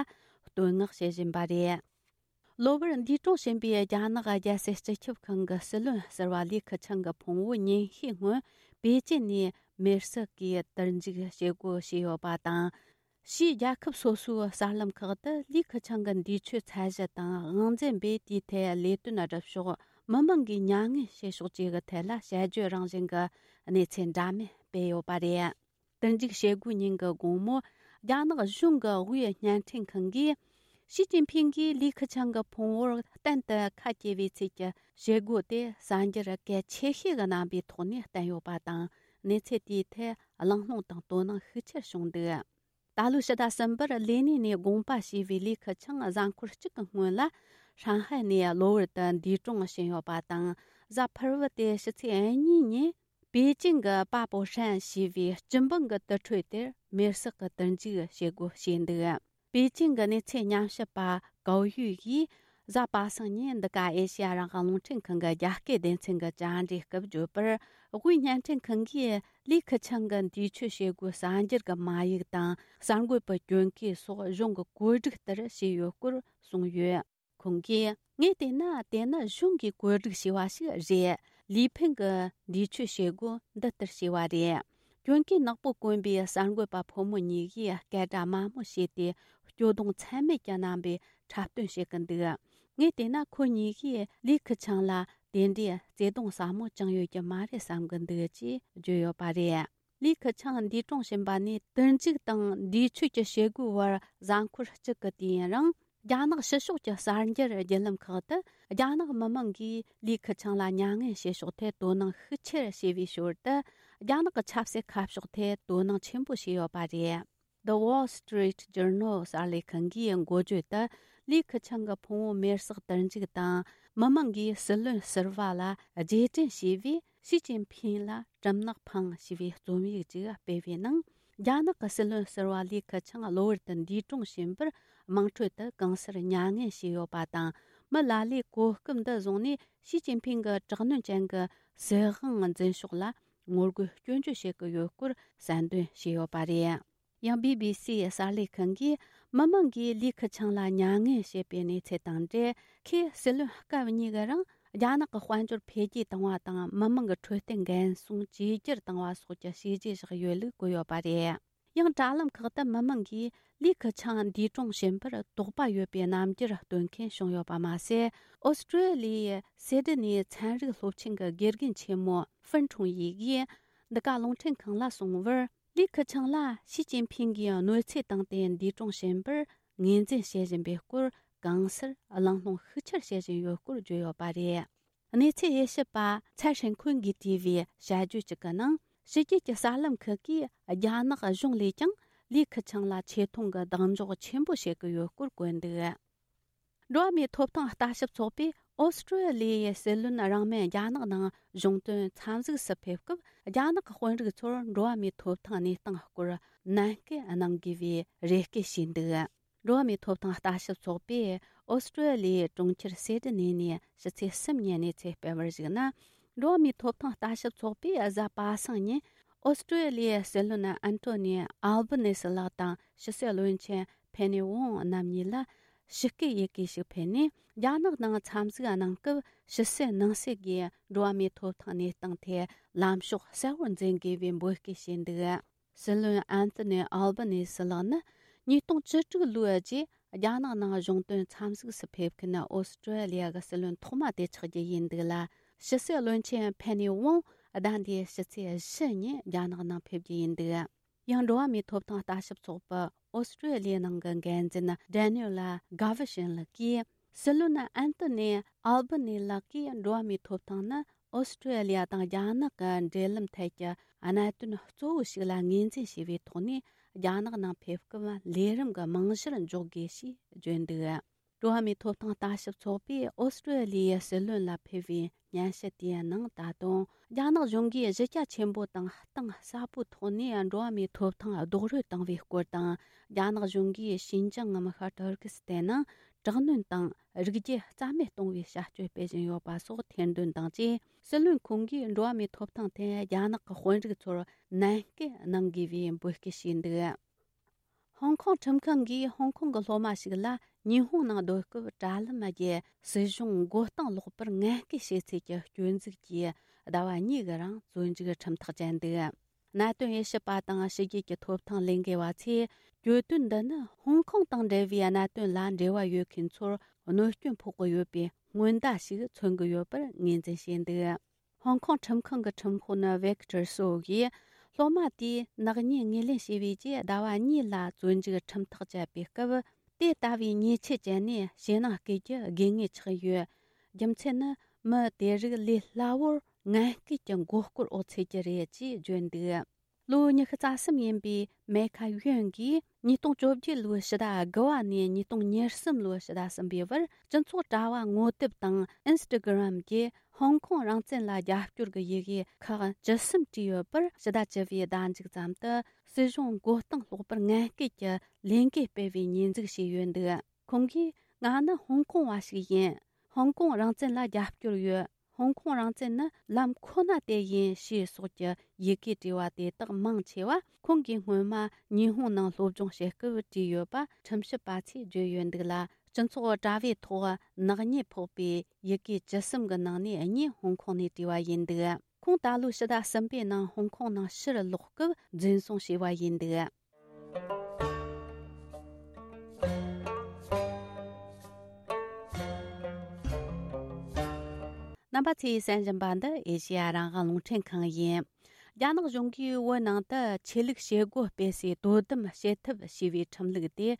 བསྟོད་བསྔགས་བྱེད་བཞིན་པ་རེད། གློ་བུར་འདས་གྲོངས་ཕྱིན་པའི་རྒྱ་ནག་རྒྱལ་སྲིད་སྤྱི་ཁྱབ་ཁང་གི་སྲིད་བློན་ཟུར་པ་ལི་ཁུ་ཆང་གི་ཕུང་བོ་ཉིན་ཤས་སྔོན་པེ་ཅིན་ནས་མེར་སྲེག་གིས་དུར་འཇུག་བྱེད་སྒོ་ཕྱེ་ཡོད་པ་དང་། ཕྱིའི་རྒྱལ་ཁབ་སོ་སོའི་གསར་ལམ་ཁག་ཏུ་ལི་ཁུ་ཆང་གི་འདས་མཆོད་ཚད་གཞི་དང་དབང་འཛིན་པས་དེའི་ཐད་ལས་དོན་སྒྲུབ་ཕྱོགས། མི་མང་གིས་མྱ་ངན་བྱེད་ཕྱོགས་བཅས་ཀྱི་ཐད་ལ་དཔྱད་བརྗོད་རང་བཞིན་གྱི་གནས་ཚུལ་འདྲ་མིན་སྤེལ་ཡོད་པ་རེད། དུར་འཇུག་བྱེད་སྒོའི་ཉིན་གྱི་དགོང་མོ། རྒྱ་ནག་གཞུང་གི་དབུས་བརྙན་འཕྲིན་ཁང་གིས། ཞི་ཅིན་ཕིང་གིས་ལི་ཁེ་ཆང་གི་ཕུང་བོར་གཏན་དུ་ཁ་གྱེས་པའི་ཚུལ་གྱི་བྱེད་སྒོ་དེ་གསར་འགྱུར་གལ་ཆེ་ཤོས་ཀྱི་རྣམ་པའི་ཐོག་ནས་བསྟན་ཡོད་པ་དང་། གནས་ཚུལ་དེའི་ཐད་གླེང་སློང་དང་དོ་སྣང་ཤུགས་ཆེར་བྱུང་འདུག་ད་ལོའི་ཕྱི་ཟླ་གསུམ་པར་ལེ་ནིན་ནས་དགོངས་པ་ཞུས་པའི་ལི་ཁེ་ཆང་གཟའ་འཁོར་གཅིག་གི་སྔོན་ལ། ཧྲང་ཧའེ་ནས་གློ་བུར་དུ་འདས་གྲོངས་ཕྱིན་ཡོད་པ་དང་། གཟའ་ཕུར་བུ་སྟེ་ཕྱི་ཚེས་གཉིས་ཉིན། པེ་ཅིང་གི་པ་པོ་ཧྲན་ཞེས་པའི་སྤྱི་འབངས་ཀྱི་དུར་ཁྲོད་དེར་མེར་སྲེག་གི་དུར་འཇུག་བྱེད་སྒོ་བྱས་འདུག་པེ་ཅིང་གི་གནས་ཚུལ་ཉམས་ཞིབ་པ་ཀའོ་ཡུས་ཀྱིས་གཟའ་པ་སངས་ཉིན་འདི་ག་ཨེ་ཤེ་ཡ་རང་དབང་རླུང་འཕྲིན་ཁང་གི་རྒྱ་སྐད་སྡེ་ཚན་གྱི་བཅར་འདྲིའི་སྐབས་བརྗོད་པར། དབུས་བརྙན་འཕྲིན་ཁང་གིས་ལི་ཁེ་ཆང་གི་འདས་མཆོད་བྱེད་སྒོའི་གསར་འགྱུར་གྱི་མ་ཡིག་དང་། གསར་འགོད་པའི་གྱོན་གོས་སོགས་གཞུང་གི་བཀོད་སྒྲིག་ལྟར་བྱས་ཡོད་སྐོར་གསུངས་ཡོད། ཁོང་གིས། ངས་བལྟས་ན་དེ་ནི་གཞུང་གིས་བཀོད་སྒྲིག་བྱས་པ་ཞིག་རེད། ལི་ཕིང་གི་འདས་མཆོད་བྱེད་སྒོ་འདི་ལྟར་བྱས་པ་རེད། གྱོན་གོས་ནག་པོ་གོན་པའི་གསར་འགོད་པ་ཕོ་མོ་གཉིས་ཀྱིས་སྐད་སྒྲ་དམའ་མོ་བྱས་ཏེ། སྐྱོ་གདུང་ཚད་མེད་ཀྱི་རྣམ་པའི་འཁྲབ་སྟོན་བྱེད་ཀྱི་འདུག་ངས་བལྟས་ན་ཁོ་གཉིས་ཀྱིས་ལི་ཁེ་ཆང་ལ་དེ་འདྲའི་བརྩེ་གདུང་ཟབ་མོ་བཅངས་ཡོད་ཀྱི་མ་རེད་བསམ་གྱི་འདུག་ཅེས་བརྗོད་ཡོད་པ་རེད། ལི་ཁེ་ཆང་འདས་གྲོངས་ཕྱིན་པ་ནས་དུར་འཇུག་དང་འདས་མཆོད་ཀྱི་བྱེད་སྒོའི་བར་གཟའ་འཁོར་གཅིག་གི་དུས་ཡུན་རིང་། རྒྱ་ནག་ཕྱི་ཕྱོགས་ཀྱི་གསར་འགྱུར་བརྒྱུད་ལམ་ཁག་ཏུ། རྒྱ་ནག་མི་མང་གིས་ལི་ཁེ་ཆང་ལ་མྱ་ངན་བྱེད་ཕྱོགས་ཐད་དོ་སྣང་ཤུགས་ཆེར་བྱས་པའི་ཞོར་དུ། རྒྱ་ནག་གི་ཆབ་སྲིད་ཁ་ཕྱོགས་ཐད་དོ་སྣང་ཆེན་པོ་བྱས་ཡོད་པ་རེད། The Wall Street Journal གསར་ལས་ཁང་གིས་འགོ་བརྗོད་དུ། ལི་ཁེ་ཆང་གི་ཕུང་བོ་མེར་སྲེག་དུར་འཇུག་དང་། མི་མང་གིས་སྲིད་བློན་ཟུར་པ་ལ་རྗེས་དྲན་ཞུས་པས། ཞི་ཅིན་ཕིང་ལ་གྲིབ་ནག་འཕངས་ཞེས་པའི་རྩོམ་ཡིག་ཅིག་སྤེལ་བའི་ནང་། རྒྱ་ནག་གི་སྲིད་བློན་ཟུར་པ་ལི་ཁེ་ཆང་གློ་བུར་དུ་འདས་གྲོངས་ཕྱིན་པར། དམངས་ཁྲོད་དུ་གང་སར་མྱ་ངན་བྱས་ཡོད་པ་དང་། མི་ལ་ལས་གོ་སྐབས་འདི་བཟུང་ནས་ཞི་ཅིན་ཕིང་གི་དྲག་གནོན་ཅན་གྱི་སྲིད་དབང་འཛིན་ཕྱོགས་ལ་ངོ་རྒོལ་སྐྱོན་བརྗོད་བྱེད་ཀྱི་ཡོད་སྐོར་གསལ་འདོན་བྱས་ཡོད་པ་རེད། ཡང་བི་བི་སི་གསར་ལས་ཁང་གིས་མི་མང་གིས་ལི་ཁེ་ཆང་ལ་མྱ་ངན་བྱེད་པའི་གནས་ཚུལ་དང་འབྲེལ། ཁོས་སྲིད་བློན་སྐབས་གཉིས་ཀྱི་རིང་རྒྱ་ནག་གི་དཔལ་འབྱོར་འཕེལ་རྒྱས་བཏང་བ་དང་། མི་མང་གི་འཕྲོད་བསྟེན་འགན་སྲུང་བཅོས་བསྒྱུར་བཏང་བ་སོགས་ཀྱི་བྱས་རྗེས་བཞག་ཡོད་ལུགས་བཀོད་ཡོད་པ་རེད། ཡང་དྲ་ལམ་ཁག་ཏུ་མི་མང་གིས་ལི་ཁེ་ཆང་འདས་གྲོངས་ཕྱིན་པར་དོགས་པ་ཡོད་པའི་རྣམ་འགྱུར་སྟོན་མཁན་བྱུང་ཡོད་པ་མ་ཟད། ཨོ་སི་ཀྲོ་ལི་ཡའི་སེ་ཌི་ནི་ཚན་རིག་སློབ་ཆེན་གྱི་དགེ་རྒན་ཆེན་མོ་ཧྥུན་ཁྲུང་ཡི་གིས་འདི་ག་རླུང་འཕྲིན་ཁང་ལ་གསུངས་པར། ལི་ཁེ་ཆང་ལ་ཞི་ཅིན་ཕིང་གིས་གནོད་འཚེ་བཏང་སྟེ་འདས་གྲོངས་ཕྱིན་པར་ངོས་འཛིན་བྱེད་བཞིན་པའི་སྐོར་གང་སར་གླེང་སློང་ཤུགས་ཆེར་བྱེད་བཞིན་ཡོད་སྐོར་བརྗོད་ཡོད་པ་རེད། གནས་ཚུལ་དབྱེ་ཞིབ་པ་ཚའེ་ཧྲེང་ཁུན་གྱིས་བྲིས་པའི་དཔྱད་བརྗོད་ཅིག་གི་ནང་། ཕྱི་རྒྱལ་གྱི་གསར་ལམ་ཁག་གིས་རྒྱ་ནག་གཞུང་ལས་ཀྱང་ལི་ཁེ་ཆང་ལ་ཆེ་མཐོང་གི་གདེང་འཇོག་ཆེན་པོ་བྱེད་ཀྱི་ཡོད་སྐོར་བཀོད་འདུག་འགྲོ་བ་མིའི་ཐོབ་ཐང་ལྟ་ཞིབ་ཚོགས་པས་ཨོ་སི་ཀྲོ་ལི་ཡའི་སྲིད་བློན་རིང་མིན་རྒྱ་ནག་ནང་གཞུང་དོན་འཚམས་གཟིགས་སུ་ཕེབས་སྐབས། རྒྱ་ནག་གི་དཔོན་རིགས་ཚོར་འགྲོ་བ་མིའི་ཐོབ་ཐང་གནས་སྟངས་སྐོར་ནན་སྐུལ་གནང་དགོས་པའི་རེ་སྐུལ་བྱས་འདུག་འགྲོ་བ་མིའི་ཐོབ་ཐང་ལྟ་ཞིབ་ཚོགས་པས་ཨོ་སི་ཀྲོ་ལི་ཡའི་གྲོང་ཁྱེར་སེ་ཌི་ནེ་ནས་ཕྱི་ཚེས་གསུམ་ཉིན་གནས་ཚུལ་སྤེལ་བར་གཞིགས་ན། འགྲོ་བ་མིའི་ཐོབ་ཐང་ལྟ་ཞིབ་ཚོགས་པས་གཟའ་པ་སངས་ཉིན་ཨོ་སི་ཀྲོ་ལི་ཡའི་སྲིད་བློན་ཨན་ཐོ་ནི་ཨལ་བྷ་ནེ་སི་ལགས་དང་ཕྱི་སྲིད་བློན་ཆེན་ཕེ་ནེ་ཝོང་རྣམ་གཉིས་ལ་ཞི་བཀོད་ཡི་གེ་ཞིག་ཕུལ་ནས། རྒྱ་ནག་ནང་འཚམས་གཟིགས་གནང་སྐབས་ཕྱི་སྲིད་ནང་སྲིད་ཀྱིས་འགྲོ་བ་མིའི་ཐོབ་ཐང་གནས་སྟངས་ཐད་ལམ་ཕྱོགས་གསལ་བོར་འཛིན་དགོས་པའི་འབོད་སྐུལ་བྱས་འདུག་སྲིད་བློན་ཨན་ཐོ་ནི་ཨལ་བྷ་ནེ་སི་ལགས་ནི་ཉིས་སྟོང་བཅུ་དྲུག་ལོའི་རྗེས་རྒྱ་ནག་ནང་གཞུང་དོན་འཚམས་གཟིགས་སུ་ཕེབས་མཁན་ཨོ་སི་ཀྲོ་ལི་ཡ་གི་སྲིད་བློན་ཐོག་མ་དེ་ཆགས་རྒྱུ་ཡིན་འདུག་ལ། ཕྱི་སྲིད་བློན་ཆེན་ཕེ་ནེ་ཝོང་ཟླ་འདིའི་ཕྱི་ཚེས་བཞི་ཉིན་རྒྱ་ནག་ནང་ཕེབས་རྒྱུ་ཡིན་འདུག་ཡང་འགྲོ་བ་མིའི་ཐོབ་ཐང་ལྟ་ཞིབ་ཚོགས་པ་ཨོ་སི་ཀྲོ་ལི་ཡའི་ནང་གི་འགན་འཛིན་ཌེ་ནིའུ་ལ་གྷ་ཝི་ཤིན་ལགས་ཀྱིས། སྲིད་བློན་ཨན་ཐོ་ནི་ཨལ་བྷ་ནི་ལགས་ཀྱིས་འགྲོ་བ་མིའི་ཐོབ་ཐང་ནི་ཨོ་སི་ཀྲོ་ལི་ཡ་དང་རྒྱ་ནག་གི་འབྲེལ་ལམ་ཐད་ཀྱི་གནད་དོན་གཙོ་བོ་ཞིག་ལ་ངོས་འཛིན་བྱས་པའི་ཐོག་ནས། རྒྱ་ནག་ནང་ཕེབས་སྐབས་ལས་རིམ་གྱི་རྨང་གཞིར་འཇོག་དགོས་ཞེས་བརྗོད་འདུག་འགྲོ་བ་མིའི་ཐོབ་ཐང་ལྟ་ཞིབ་ཚོགས་པས་ཨོ་སི་ཀྲོ་ལི་ཡའི་སྲིད་བློན་ལ་ཕུལ་བའི་སྙན་ཞུ་དེའི་ནང་། ད་དུང་རྒྱ་ནག་གཞུང་གིས་གཞི་རྒྱ་ཆེན་པོ་དང་གཏིང་ཟབ་པོའི་ཐོག་ནས་འགྲོ་བ་མིའི་ཐོབ་ཐང་རྡོག་རོལ་བཏང་བའི་སྐོར་དང་། རྒྱ་ནག་གཞུང་གིས་ཞིན་ཅང་ངམ་ཤར་ཏུར་ཀི་སི་ཐན་ནང་དྲག་གནོན་དང་རིགས་རྒྱུད་རྩ་མེད་གཏོང་བའི་བྱ་སྤྱོད་སྤེལ་བཞིན་ཡོད་པ་སོགས་ཐེར་འདོན་དང་བཅས། སྲིད་བློན་ཁོང་གིས་འགྲོ་བ་མིའི་ཐོབ་ཐང་ཐད་རྒྱ་ནག་གི་དཔོན་རིགས་ཚོར་ནན་སྐུལ་གནང་དགོས་པའི་འབོད་སྐུལ་བྱས་འདུག་ཧོང་ཀོང་ཁྲིམས་ཁང་གིས་ཧོང་ཀོང་གི་སློབ་མ་ཞིག་ལ་ཉི་ཧོང་ནང་སྡོད་སྐབས་དྲ་ལམ་བརྒྱུད་སྲིད་གཞུང་མགོ་རྟིང་སློག་པར་ངན་སྐུལ་བྱས་ཚུལ་གྱི་སྐྱོན་འཛུགས་ཀྱིས་ཟླ་བ་གཉིས་ཀྱི་རིང་བཙོན་འཇུག་ཁྲིམས་ཐག་བཅད་འདུག་གནད་དོན་དབྱེ་ཞིབ་པ་དང་ཕྱི་རྒྱལ་གྱི་ཐོབ་ཐང་ལས་འགུལ་བ་ཚོས། གྱོད་དོན་འདི་ནི་ཧོང་ཀོང་དང་འབྲེལ་བའི་གནད་དོན་ལ་འབྲེལ་བ་ཡོད་མཁན་ཚོར་གནོད་སྐྱོན་ཕོག་གི་ཡོད་པའི་སྔོན་བརྡ་ཞིག་མཚོན་གྱི་ཡོད་པར་ངོས་འཛིན་བྱས་འདུག་ཧོང་ཀོང་ཁྲིམས་ཁང་གི་ཁྲིམས་དཔོན་ཝེག་ཏར་སོ་གིས། སློབ་མ་དེས་ནག་ཉེས་ངོས་ལེན་བྱས་པའི་རྗེས་ཟླ་བ་གཉིས་ལ་བཙོན་འཇུག་ཁྲིམས་ཐག་བཅད་པའི་སྐབས། དེ་ལྟ་བུའི་ཉེས་ཆད་བཅད་ནས་ཕྱི་ནང་བསྐྱལ་རྒྱུ་དགོས་ངེས་ཆགས་ཡོད། རྒྱུ་མཚན་ནི་མི་དེ་རིགས་ལས་སླ་བོར་ངན་སྐུལ་གྱི་མགོ་སྐོར་འོག་ཚུད་རྒྱུ་རེད་ཅེས་བརྗོད་འདུག་ལོ་ཉི་ཤུ་རྩ་གསུམ་ཡིན་པའི་མེ་ཁ་ཡོན་གྱིས་ཉིས་སྟོང་བཅོ་བརྒྱད་ལོའི་ཕྱི་ཟླ་དགུ་བ་ནས་ཉིས་སྟོང་ཉེར་གསུམ་ལོའི་ཕྱི་ཟླ་གསུམ་པའི་བར། སྤྱི་ཚོགས་དྲ་བ་ངོ་དེབ་དང་ཨིན་སི་ཊ་གྷི་རམ་གྱིས་ཧོང་ཀོང་རང་བཙན་ལ་རྒྱབ་སྐྱོར་གྱི་ཡི་གེ་ཁག་བཅུ་གསུམ་བྲིས་ཡོད་པར། ཕྱི་ཟླ་བཅུ་པའི་ཟླ་མཇུག་ཙམ་དུ་སྲིད་གཞུང་མགོ་རྟིང་སློག་པར་ངན་སྐུལ་གྱི་ལས་འགུལ་སྤེལ་བའི་ཉེས་འཛུགས་བྱས་ཡོད་འདུག་ཁོང་གིས། ང་ནི་ཧོང་ཀོང་བ་ཞིག་ཡིན། ཧོང་ཀོང་རང་བཙན་ལ་རྒྱབ་སྐྱོར་ཡོད། ཧོང་ཀོང་རང་བཙན་ནི་ལམ་ཁོ་ན་དེ་ཡིན་ཞེས་སོགས་ཀྱི་ཡི་གེ་བྲིས་པ་དེ་དག་མང་ཆེ་བ་ཁོང་གིས་སྔོན་མ་ཉི་ཧོང་ནང་སློབ་སྦྱོང་བྱེད་སྐབས་བྲིས་ཡོད་པ་ཁྲིམས་ཞིབ་པ་ཚོས་བརྗོད་ཡོད་འདུག་ལ། སྤྱི་ཚོགས་དྲ་བའི་ཐོག་ནག་ཉེས་ཕོག་པའི་ཡི་གེ་བཅུ་གསུམ་གྱི་ནང་ནས་གཉིས་ཧོང་ཀོང་ནས་བྲིས་པ་ཡིན་འདུག་ཁོང་ད་ལོའི་ཕྱི་ཟླ་གསུམ་པའི་ནང་ཧོང་ཀོང་ནང་ཕྱིར་ལོག་སྐབས་འཛིན་བཟུང་བྱས་པ་ཡིན་འདུག་རྣམ་པ་ཚོས་གསན་བཞིན་པ་འདི་ཨེ་ཤེ་ཡ་རང་དབང་རླུང་འཕྲིན་ཁང་ཡིན། རྒྱ་ནག་གཞུང་གིས་བོད་ནང་དུ་ཆོས་ལུགས་བྱེད་སྒོ་སྤེལ་སའི་དོ་དམ་བྱེད་ཐབས་ཞེས་པའི་ཁྲིམས་ལུགས་དེ།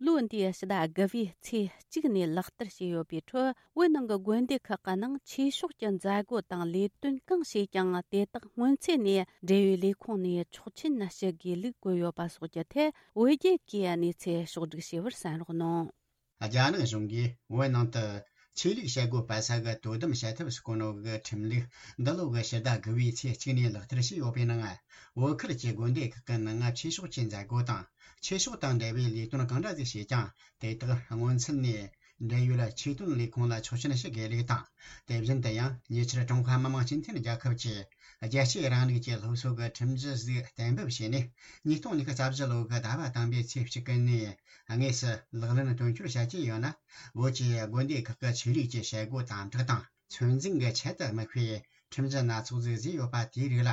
ལོ་འདིའི་ཕྱི་ཟླ་དགུ་པའི་ཚེས་གཅིག་ནས་ལག་བསྟར་བྱས་ཡོད་པའི་ཁྲོད། བོད་ནང་གི་དགོན་སྡེ་ཁག་གི་ནང་ཆོས་ཕྱོགས་ཀྱི་མཛད་སྒོ་དང་ལས་དོན་གང་བྱས་ཀྱང་། དེ་དག་སྔོན་ཚུད་ནས་འབྲེལ་ཡོད་ལས་ཁུངས་ནས་ཆོག་མཆན་ཞུ་དགོས་ལུགས་བཀོད་ཡོད་པ་སོགས་ཀྱི་ཐད། བོད་རྒྱལ་གྱིས་གནས་ཚུལ་ཕྱོགས་བསྒྲིགས་བྱས་པར་གསན་རོགས་གནང་། རྒྱ་ནག་གཞུང་གིས་བོད་ནང་དུ་ཆོས་ལུགས་བྱེད་སྒོ་སྤེལ་ས་གི་དོ་དམ་བྱེད་ཐབས་སུ་བཀོད་ནོ་གི་ཁྲིམས་ལུགས་འདི་ལོ་གི་ཕྱི་ཟླ་དགུ་པའི་ཚེས་གཅིག་ནས་ལག་བསྟར་བྱས་ཡོད་པའི་ནང་། བོད་ཁུལ་གྱི་དགོན་སྡེ་ཁག་གི་ནང་ཆོས་ཕྱོགས་ཀྱི་མཛད་སྒོ་དང་ཆོས་ཕྱོགས་དང་འབྲེལ་བའི་ལས་དོན་གང་འདྲ་ཟིག་བྱས་ཀྱང་། དེ་དག་སྔོན་ཚུད་ནས་འབྲེལ་ཡོད་ཆོས་དོན་ལས་ཁུངས་ལ་ཆོག་མཆན་ཞུ་དགོས་ལུགས་དང་། དེ་བཞིན་དུ་ཡང་ཉེ་ཆར་ཀྲུང་ཧྭ་མི་དམངས་སྤྱི་མཐུན་རྒྱལ་ཁབ་ཀྱི་རྒྱལ་གཅེས་རིང་ལུགས་ཀྱི་སློབ་གསོ་གི་ཁྲིམས་གཞི་ཟིག་གཏན་འབེབས་བྱས་ནས། ཉིས་སྟོང་ཉི་ཤུ་རྩ་བཞི་ལོ་གི་ཟླ་བ་དང་པོའི་ཚེས་གཅིག་ནས་དངོས་སུ་ལག་ལེན་དོན་འཁྱོལ་བྱ་རྒྱུ་ཡོད་ན། བོད་ཀྱི་དགོན་སྡེ་ཁག་གི་ཆོས་ལུགས་ཀྱི་བྱེད་སྒོ་དམ་དྲག་དང་ཚོད་འཛིན་གྱི་ཆེད་དུ་དམིགས་པའི་ཁྲིམས་གཞི་སྣ་ཚོགས་ཟིག་བཟོས་ཡོད་པ་དེའི་རིགས་ལ།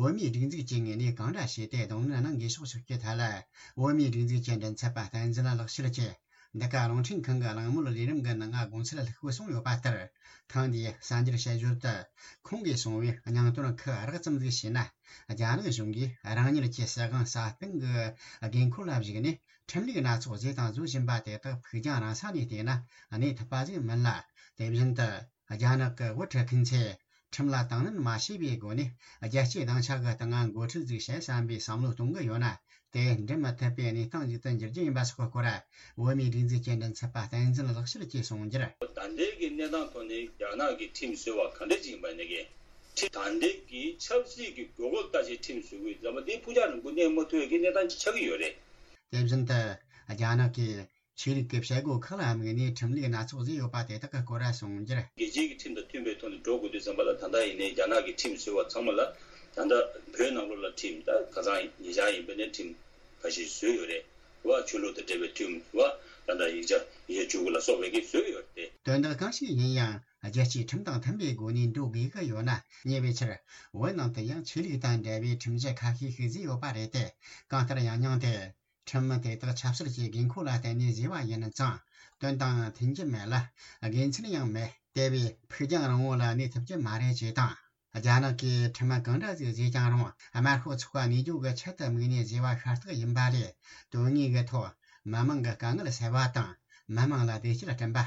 བོད་མིའི་སྒྲིག་འཛུགས་ཀྱི་ངོས་ནས་གང་འདྲ་བྱས་ཏེ་གདོང་ལེན་གནང་དགོས་ཕྱོགས་ཕྱོགས་ཀྱི་ཐད་ལ། བོད་མིའི་སྒྲིག་འཛུགས་ཀྱི་མགྲིན་ཚབ་པ་བསྟན་འཛིན་ལགས་ཤེར་གྱིས། འདི་ག་རླུང་འཕྲིན་ཁང་གི་གླེང་མོལ་ལས་རིམ་གྱི་ནང་དགོངས་ཚུལ་ལྷུག་པོ་གསུངས་ཡོད་པ་ལྟར། ཐེངས་འདིའི་གསར་འགྱུར་དཔྱད་བརྗོད་དུ་ཁོང་གིས་གསུངས་པའི་སྙིང་དོན་ཁག་རགས་ཙམ་ཟིག་བཤད་ན། རྒྱ་ནག་གཞུང་གིས་རང་ཉིད་ཀྱི་སྲིད་དབང་སྲ་བརྟན་གྱི་དགོས་མཁོ་ལ་གཞིགས་ནས། ཁྲིམས་ལུགས་སྣ་ཚོགས་བཟོས་དང་བཟོ་བཞིན་པ་དེ་དག་ཕུགས་རྒྱང་རིང་ས་ནས་བལྟས་ན་གནས་ཐུབ་པ་ཟིག་མིན་ལ། དེ་བཞིན་དུ་རྒྱ་ནག་གི་དབུ་ཁྲིད་མཁན་ཚོས་ཁྲིམས་ལ་དང་ལེན་མ་བྱས་པའི་སྒོ་ནས། རྒྱལ་སྤྱིའི་སྡིངས་ཆ་གི་སྟེང་ང་འགོ་ཁྲིད་ཟིག་བྱེད་བསམ་པའི་བསམ་བློ་གཏོང་གི་ཡོད་ན། དེ་འགྲུབ་མི་ཐུབ་པའི་གནས་སྟངས་ཤིག་ཏུ་འགྱུར་རྒྱུ་ཡིན་པ་སོགས་ཀྱི་སྐོར། བོད་མིའི་སྒྲིག་འཛུགས་ཀྱི་མགྲིན་ཚབ་པ་བསྟན་འཛིན་ལགས་ཤེར་གྱིས་གསུངས་རྒྱུར། ད་ལྟའི་གི་གནས་སྟངས་ཐོག་ནས་རྒྱ་ནག་གི་ཁྲིམས་བཟོ་བ་ག་འདྲ་ཅིག་ཡིན་པ་ནས་ཀྱི། ཁྲིམས་ད་ལྟའི་གི་ཆབ་སྲིད་ཀྱི་དགོས་མཁོ་ལྟ་ཅི་ཁྲིམས་བཟོ་དགོས་ཙམ་པ་འདི་ཕུགས་རྒྱང་རིང་པོ་གནས་མ་ཐུབ་པའི་གི་གནས་སྟངས་ཅིག་ཆགས་ཀྱི་ཡོད་རེད། དེ་བཞིན་དུ་རྒྱ་ནག་གིས་ཆོས་ལུགས་ཀྱི་བྱེད་སྒོ་ཁག་ལ་དམིགས་ནས་ཁྲིམས་ལུགས་སྣ་ཚོགས་བཟོས་ཡོད་པ་དེ་དག་གི་སྐོར་གསུངས་རྒྱུར། རྒྱལ་སྤྱིའི་གི་ཁྲིམས་དང་མཐུན་པའི་ཐོག་ནས་འགྲོ་དགོས་དུས་ཙམ་པ་ལ། ད་ལྟ་ཡིན་ནའི་རྒྱ་ནག་གི་ཁྲིམས་བཟོས་པ་ཚང་མ་ལ། ད་ལྟ་བོད་ནང་ལོགས་ལ་ཁྲིམས་ད་ཁ་སང་ཉེ་ཆར་ཡིན་པ་ནས་ཁྲིམས་ཁ་ཤས་བཟོས་ཡོད་རེད་བ། ཆོས་ལུགས་དང་འབྲེལ་བའི་ཁྲིམས་བ། ད་ལྟ་ཡིག་ཆ་ཡིག་ཆ་བཅུ་དགུ་ལ་སོགས་པའི་གི་བཟོས་ཡོད་རེད། དོན་དག་གང་ཞིག་ཡིན་ཡང་རྒྱལ་སྤྱིའི་ཁྲིམས་དང་མཐུན་པའི་སྒོ་ནས་འགྲོ་དགོས་ཀྱི་ཡོད་ན། ཉེ་བའི་ཆར་བོད་ནང་དུ་ཡང་ཆོས་ལུགས་དང་འབྲེལ་བའི་ཁྲིམས་གཞི་ཁ་ཤས་ཤིག་བཟོས་ཡོད་པ་རེད་དེ། གང་ལྟར་ཡང་སྙིང་དེ། ཁྲིམས་དེ་དག་ཆབ་སྲིད་ཀྱི་དགོས་མཁོ་ལ་བརྟེན་ནས་བཟོས་པ་ཡིན་ཙང་། དོན་དང་མཐུན་གྱི་མེད་ལ། དགེ་མཚན་ཡང་མེད། དེ་བས་ཕུགས་རྒྱང་རིང་བོ་ལ་གནས་ཐུབ་ཀྱི་མ་རེད་ཅེས་དང་། རྒྱ་ནག་གིས་ཁྲིམས་གང་འདྲ་ཟིག་བཟོས་ཀྱང་རུང་། དམར་ཤོག་ཚོགས་པ་གནས་རྒྱུ་གི་ཆེད་དུ་དམིགས་ནས་བཟོས་པ་ཤ་སྟག་ཡིན་པ་ལས། དོན་དངོས་ཀྱི་ཐོག་མི་མང་གི་དཀའ་ངལ་སེལ་བ་དང་། མི་མང་ལ་བདེ་སྐྱིད་བསྐྲུན་པ།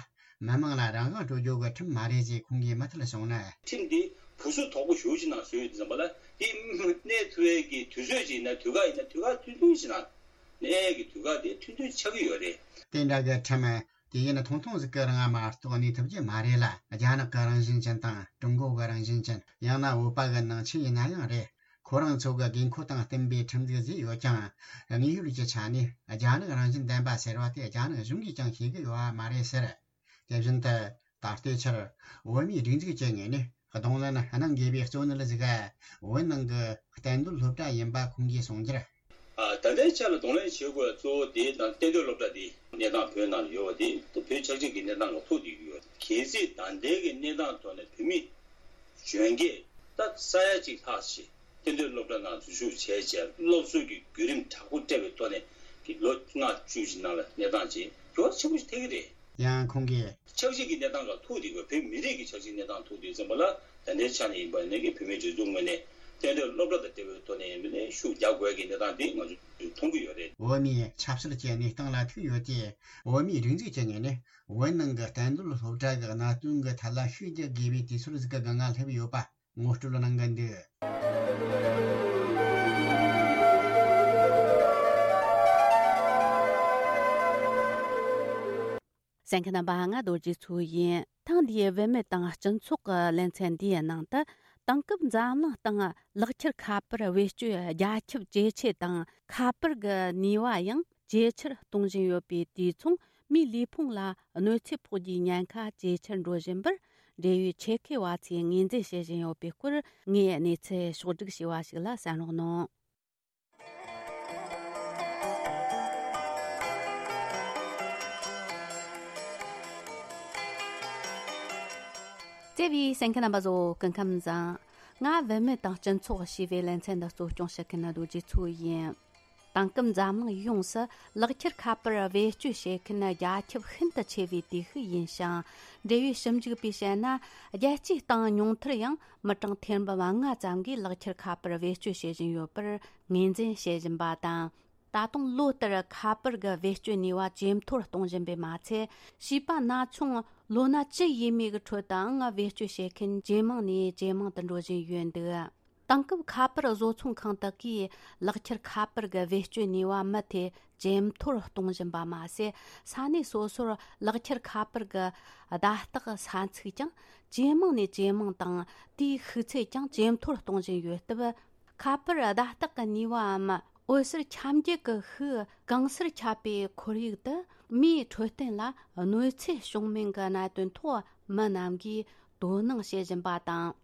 མི་མང་ལ་རང་དབང་སྤྲོད་རྒྱུ་གི་ཁྲིམས་མ་རེད་ཅེས་ཁོང་གིས་མུ་མཐུད་གསུངས་ནས། ཁྲིམས་འདི་བུ་སུ་དོག་པོ་ཞེ་པོ་ཅིག་ནང་བཟོས་ཡོད་དུས་ཙམ་པ་ལ། དེ་གནས་ཐུབ་ཡས་ཀྱི་དུས་ཚོད་ཅིག་ཡིན་ན། དུས་བཀག་ཡིན་ན། དུས་བཀག་ཐུང་ཐུང་ཞིག་ནང་གནས་ཡས་ཀྱི་དུས་བཀག་དེ་ཐུང་ཐུང་ཆགས་ཀྱི་ཡོད་རེད། དེ་འདྲ་གི་ཁྲིམས་དེ་ཡིན་ཐུང་ཐུང་ཟིག་གི་རིང་མ་གཏོགས་གནས་ཐུབ་ཀྱི་མ་རེད་ལ། རྒྱ་ནག་གི་རང་བཞིན་ཅན་དང་ཀྲུང་གོ་གི་རང་བཞིན་ཅན། ཡང་ན་བོད་པ་གི་ནང་ཆོས་ཡིན་ན་ཡང་རེད། ཁོ་རང་ཚོ་གི་དགོས་མཁོ་དང་བསྟུན་པའི་ཁྲིམས་འཛུགས་བཟོས་ཡོད་ཀྱང་། དངོས་ཡོད་ཀྱི་ཆ་ནས་རྒྱ་ནག་རང་བཞིན་ལྡན་པ་ཟེར་བ་དེ་རྒྱ་ནག་གཞུང་གིས་ཀྱང་ཤེས་ཀྱི་ཡོད་པ་མ་རེད་ཟེར། དེ་བཞིན་དུ་ད་ལྟའི་ཆར་བོད་མིའི་སྒྲིག་འཛུགས་ཀྱི་ངོས་ནས་གདོང་ལེན་གནང་དགོས་པའི་གཙོ་གནད་ཟིག་བོད་ནང་གི་གཏན་སྡོད་སློབ་གྲྭ་ཡིན་པ་ཁོང་གིས་གསུངས་རྒྱུར། ཨ། ད་ལྟའི་ཆ་ལ་གདོང་ལེན་བྱེད་དགོས་པའི་གཙོ་བོ་དེ་དང་གཏན་སྡོད་སློབ་གྲྭ་དེ་གནས་སྟངས་བོད་ནང་ལ་ཡོད་པ་དེ་བོད་ཆབ་སྲིད་ཀྱི་གནས་སྟངས་ལ་ཐུག་བསྡད་ཀྱི་ཡོད། གལ་སྲིད་ད་ལྟའི་གི་གནས་སྟངས་ཐོག་ནས་བོད་མི་གཞོན་སྐྱེས་ད་ས་ཡ་གཅིག་ལྷག་ཞིག་གཏན་སྡོད་སློབ་གྲྭ་ནང་འཛུལ་ཞུགས་བྱས་རྗེས་སློབ་གསོ་གི་བརྒྱུད་རིམ་དྲག་པོ་སྤྲད་པའི་ཐོག་ནས་ཀྱི་ལོ་ལྔ་བཅུ་ཞིག་ནང་ལ་གནས་སྟངས་ཅིག་འགྱུར་བ་ཆེན་པོ་ཞིག་ཐེབས་ཀྱི་རེད། ཡང་ཁོང་གིས། ཆབ་སྲིད་ཀྱི་གནས་སྟངས་ལ་ཐུག་བསྡད་དགོས། བོད་མི་རིགས་ཀྱི་ཆབ་སྲིད་གནས་སྟངས་ཐུག་བསྡད་ཙམ་པ་ལ། ད་ལྟའི་ཆ་ནས་ཡིན་པ་ནས་ཀྱི་བོད་མིའི་སྒྲིག་འཛུགས་ངོས་ནས་ད་ རྟེན་འབྲེལ་སློབ་གྲྭ་དང་འབྲེལ་བའི་ཐོག་ནས་མི་ནས་ཤུགས་རྒྱག་དགོས་ཀྱི་གནས་སྟངས་དེ་ང་ཚོས་མཐོང་གི་ཡོད་རེད། བོད་མིའི་ཆབ་སྲིད་ཀྱི་གནས་སྟངས་ལ་ཐུག་ཡོད་དེ། བོད་མིའི་སྒྲིག་འཛུགས་ཀྱི་ངོས་ནས་བོད་ནང་གི་བསྟན་རྡོར་སློབ་གྲྭ་གི་གནད་དོན་གྱི་ཐད་ལ་ཤུགས་རྒྱག་དགོས་པའི་དུས་ཚོད་ཟིག་གི་སྒང་ང་སླེབས་ཡོད་པ་ངོ་སྤྲོད་གནང་གི་འདུག། གསན་མཁན་རྣམ་པ། ང་རྡོ་རྗེ་མཚོ་ཡིན། ཐེངས་འདིའི་བུད་མེད་དང་སྤྱི་ཚོགས་ཀྱི་ལེ་ཚན་འདིའི་ནང་དུ། དེང་སྐབས་འཛམ་གླིང་སྟེང་ལག་ཁྱེར་ཁ་པར་བེད་སྤྱོད་རྒྱ་ཁྱབ་ཇེ་ཆེ་དང་། ཁ་པར་གྱི་ནུས་པ་ཡང་ཇེ་ཆེར་གཏོང་བཞིན་ཡོད་པའི་དུས་མཚུངས། མིའི་ལུས་ཕུང་ལ་གནོད་འཚེ་ཕོག་རྒྱུའི་ཉེན་ཁ་ཇེ་ཆེར་འགྲོ་བཞིན་པར། འབྲེལ་ཡོད་ཆེད་མཁས་པ་ཚོས་ངོས་འཛིན་བྱེད་བཞིན་ཡོད་པའི་སྐོར། ངས་གནས་ཚུལ་ཕྱོགས་བསྒྲིགས་བྱས་པ་ཞིག་ལ་གསན་རོགས་གནང་། བརྩེ་བའི་གསན་མཁན་རྣམ་པ་ཚོ། སྐུ་ཁམས་བཟང་། ང་བུད་མེད་དང་སྤྱི་ཚོགས་ཞེས་པའི་ལེ་ཚན་འདི་གཙོ་སྐྱོང་བྱེད་མཁན་རྡོ་རྗེ་མཚོ་ཡིན། དེང་སྐབས་འཛམ་གླིང་ཡོངས་སུ་ལག་ཁྱེར་ཁ་པར་བེད་སྤྱོད་བྱེད་མཁན་རྒྱ་ཁྱབ་ཤིན་ཏུ་ཆེ་བའི་དུས་ཤིག་ཡིན་ཞིང་། འབྲེལ་ཡོད་ཞིབ་འཇུག་པས་བཤད་ན། རྒྱལ་སྤྱིའི་སྟེང་ཉུང་མཐར་ཡང་མི་གྲངས་ཐེར་འབུམ་ལྔ་ཙམ་གྱིས་ལག་ཁྱེར་ཁ་པར་བེད་སྤྱོད་བྱེད་བཞིན་ཡོད་པར་ངོས་འཛིན་བྱེད་བཞིན་པ་དང་། ད་དུང་ལོ་ལྟར་ཁ་པར་གྱི་བེད་སྤྱོད་ནུས་པ་ཇེ་མཐོར་གཏོང་བཞིན་པས་མ་ཚད། བྱིས་པ་ན་ཆུང་ལོ་ན་བཅུ་ཡས་མས་ཀྱི་ཁྲོད་དུའང་བེད་སྤྱོད་བྱེད་མཁན་ཇེ་མང་ནས་ཇེ་མང་དུ་འགྲོ་བཞིན་ཡོད་འདུག། དེང་སྐབས་ཁ་པར་བཟོ་ཚོང་ཁང་དག་གིས་ལག་ཁྱེར་ཁ་པར་གྱི་བེད་སྤྱོད་ནུས་པ་མུ་མཐུད་ཇེ་མཐོར་གཏོང་བཞིན་པ་མ་ཟད། ས་གནས་སོ་སོར་ལག་ཁྱེར་ཁ་པར་གྱི་བརྡ་རྟགས་ས་ཚིགས་ཀྱང་ཇེ་མང་ནས་ཇེ་མང་དང་། དེའི་ཤུགས་ཚད་ཀྱང་ཇེ་མཐོར་གཏོང་བཞིན་ཡོད་སྟབས། ཁ་པར་བརྡ་རྟགས་ཀྱི་ནུས་པའམ་འོད་ཟེར་ཁྱབ་འགྱེད་ཀྱི་ཤུགས་གང་སར་ཁྱབ་པའི་ཁོར་ཡུག་ཏུ། མིའི་འཕྲོད་བསྟེན་ལ་གནོད་འཚེ་བྱུང་མིན་གྱི་གནད་དོན་ཐོག་མི་རྣམས་ཀྱིས་དོ་སྣང་བྱེད་བཞིན་པ་དང་།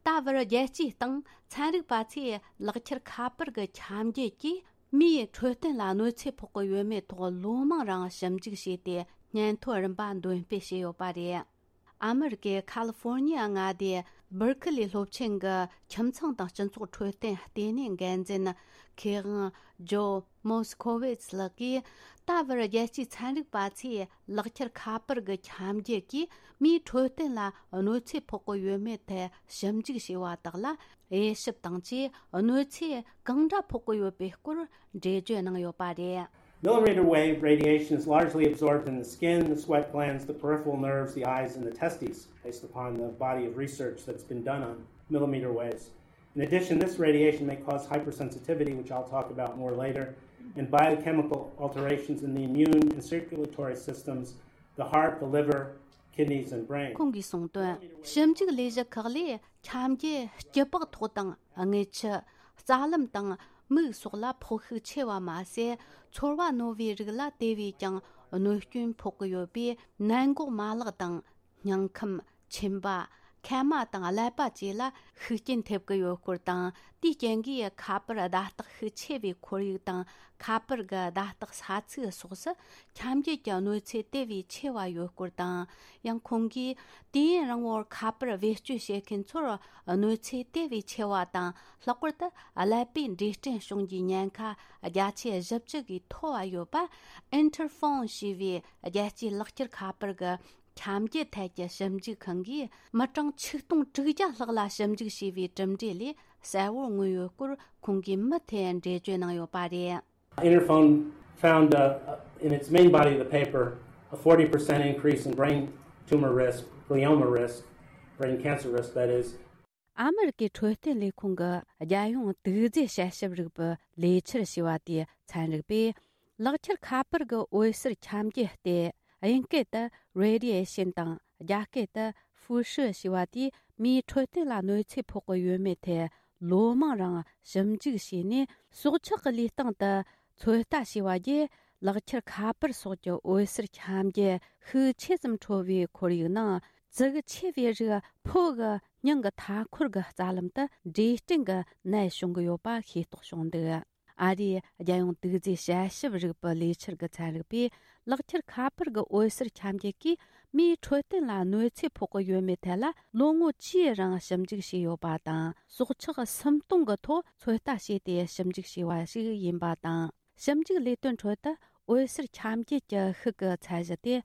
ད་བར་རྒྱལ་སྤྱིའི་སྟེང་ཚན་རིག་པ་ཚོས་ལག་ཁྱེར་ཁ་པར་གྱི་ཁྱབ་འགྱེད་ཀྱིས་མིའི་འཕྲོད་བསྟེན་ལ་གནོད་འཚེ་ཕོག་གི་ཡོད་མེད་ཐོག་ལོ་མང་རིང་ཞིབ་འཇུག་བྱས་ཏེ། སྙན་ཐོ་རིམ་པ་འདོན་སྤེལ་བྱས་ཡོད་པ་རེད། ཨ་མི་རི་ཀའི་ཁ་ལི་ཧྥོར་ནི་ཡ་མངའ་སྡེའི་སྦར་ཁི་ལི་སློབ་ཆེན་གྱི་ཁྱིམ་ཚང་དང་སྤྱི་ཚོགས་འཕྲོད་བསྟེན་ལྟེ་གནས་འགན་འཛིན་མཁས་དབང་ཇོ་མོ་སི་ཁོ་ཝིས་ལགས་ཀྱིས། ད་བར་རྒྱལ་སྤྱིའི་ཚན་རིག་པ་ཚོས་ལག་ཁྱེར་ཁ་པར་གྱི་ཁྱབ་འགྱེད་ཀྱིས་མིའི་འཕྲོད་བསྟེན་ལ་གནོད་འཚེ་ཕོག་གི་ཡོད་མེད་ཐད་ཞིབ་འཇུག་བྱས་པ་དག་ལ། དབྱེ་ཞིབ་དང་བཅས་གནོད་འཚེ་གང་འདྲ་ཕོག་གི་ཡོད་པའི་སྐོར་འགྲེལ་བརྗོད་གནང་ཡོད་པ་རེད། Millimeter wave radiation is largely absorbed in the skin, the sweat glands, the peripheral nerves, the eyes, and the testes, based upon the body of research that's been done on millimeter waves. In addition, this radiation may cause hypersensitivity, which I'll talk about more later, and biochemical alterations in the immune and circulatory systems, the heart, the liver, kidneys, and brain. ཁོང་གིས་གསུངས་དོན། ཞིབ་འཇུག་ལས་གཞི་ཁག་ལས་ཁྱབ་འགྱེད་སྐྱི་པགས་ཐོག་དང་རྔུལ་ཆུ། རྩ་ལམ་དང་མིག་སོགས་ལ་ཕོག་ཤུགས་ཆེ་བ་མ་ཟད། ཚོར་བ་རྣོ་བའི་རིགས་ལ་དེ་བས་ཀྱང་གནོད་སྐྱོན་ཕོག་གི་ཡོད་པས། ནད་འགོག་མ་ལག་དང་། སྙིང་ཁམས། མཆིན་པ། མཁལ་མ་དང་ཀླད་པ་བཅས་ལ་ཤུགས་རྐྱེན་ཐེབས་ཀྱི་ཡོད་སྐོར་དང་། དེའི་རྐྱེན་གྱིས་ཁ་པར་བརྡ་རྟགས་ཤུགས་ཆེ་བའི་ཁོར་ཡུག་དང་། ཁ་པར་གྱི་བརྡ་རྟགས་ས་ཚིགས་སོགས་སུ་ཁྱབ་འགྱེད་ཀྱི་གནོད་འཚེ་དེ་བས་ཆེ་བ་ཡོད་སྐོར་དང་། ཡང་ཁོང་གིས། དུས་ཡུན་རིང་བོར་ཁ་པར་བེད་སྤྱོད་བྱེད་མཁན་ཚོར་གནོད་འཚེ་དེ་བས་ཆེ་བ་དང་། ལྷག་པར་དུ་ཀླད་པའི་འབྲས་སྐྲན་བྱུང་རྒྱུའི་ཉེན་ཁ་བརྒྱ་ཆ་བཞི་བཅུ་གིས་མཐོ་བ་ཡོད་པ། Interphone ཞེས་པའི་རྒྱལ་སྤྱིའི་ལག་ཁྱེར་ཁ་པར་གྱི་ཁྱབ་འགྱེད་ཐད་ཀྱི་ཞིབ་འཇུག་ཁང་གིས། མི་གྲངས་ཆིག་སྟོང་དྲུག་བརྒྱ་ལྷག་ལ་ཞིབ་འཇུག་བྱས་པའི་གྲུབ་འབྲས་ལས་གསལ་བོར་མངོན་ཡོད་སྐོར་ཁོང་གིས་མུ་མཐུད་འགྲེལ་བརྗོད་གནང་ཡོད་པ་རེད། Interphone found, uh, in its main body of the paper, a forty percent increase in brain tumor risk, glioma risk, brain cancer risk, that is. ཨ་མི་རི་ཀའི་འཕྲོད་བསྟེན་ལས་ཁུངས་ཀྱི་རྒྱལ་ཡོངས་དུག་རྫས་དཔྱད་ཞིབ་རིག་པའི་ལས་འཆར་ཞེས་པ་དེའི་ཚན་རིག་པས། ལག་ཁྱེར་ཁ་པར་གྱི་འོད་ཟེར་ཁྱབ་འགྱེད་དེ། དབྱིན་སྐད་དུ་radiation དང་། རྒྱ་སྐད་དུ་ཧྥུ་ཧྲི་ཞེས་པ་དེས་མིའི་འཕྲོད་བསྟེན་ལ་གནོད་འཚེ་ཕོག་གི་ཡོད་མེད་ཐད་ལོ་མང་རིང་ཞིབ་འཇུག་བྱས་ནས། སྲོག་ཆགས་ཀྱི་ལུས་སྟེང་དུ་ཚོད་ལྟ་བྱས་པ་བརྒྱུད། ལག་ཁྱེར་ཁ་པར་སོགས་ཀྱི་འོད་ཟེར་ཁྱབ་འགྱེད་ཤུགས་ཆེ་ཙམ་འཕྲོ་བའི་ཁོར་ཡུག་ནང་། ཙི་གུ་ཆེ་བའི་རིགས་ཕོ་གི་སྙིང་གི་མཐའ་འཁོར་གྱི་རྩ་ལམ་དུ་འབྲས་སྐྲན་གྱི་ནད་བྱུང་གི་ཡོད་པ་ཤེས་རྟོགས་བྱུང་འདུག། ཨ་རིའི་རྒྱལ་ཡོངས་དུག་རྫས་དཔྱད་ཞིབ་རིག་པའི་ལས་འཆར་གྱི་ཚན་རིག་པས། ལག་ཁྱེར་ཁ་པར་གྱི་འོད་ཟེར་ཁྱབ་འགྱེད་ཀྱིས་མིའི་འཕྲོད་བསྟེན་ལ་གནོད་འཚེ་ཕོག་གི་ཡོད་མེད་ཐད་ལ་ལོ་ངོ་བཅུའི་རིང་ཞིབ་འཇུག་བྱས་ཡོད་པ་དང་། སྲོག་ཆགས་སུམ་སྟོང་གི་ཐོག་ཚོད་ལྟ་བྱས་ཏེ་ཞིབ་འཇུག་བྱས་པ་ཞིག་ཡིན་པ་དང་། ཞིབ་འཇུག་ལས་དོན་ཁྲོད་དུ། འོད་ཟེར་ཁྱབ་འགྱེད་ཀྱི་ཤུགས་ཀྱི་ཚད་གཞི་དེ།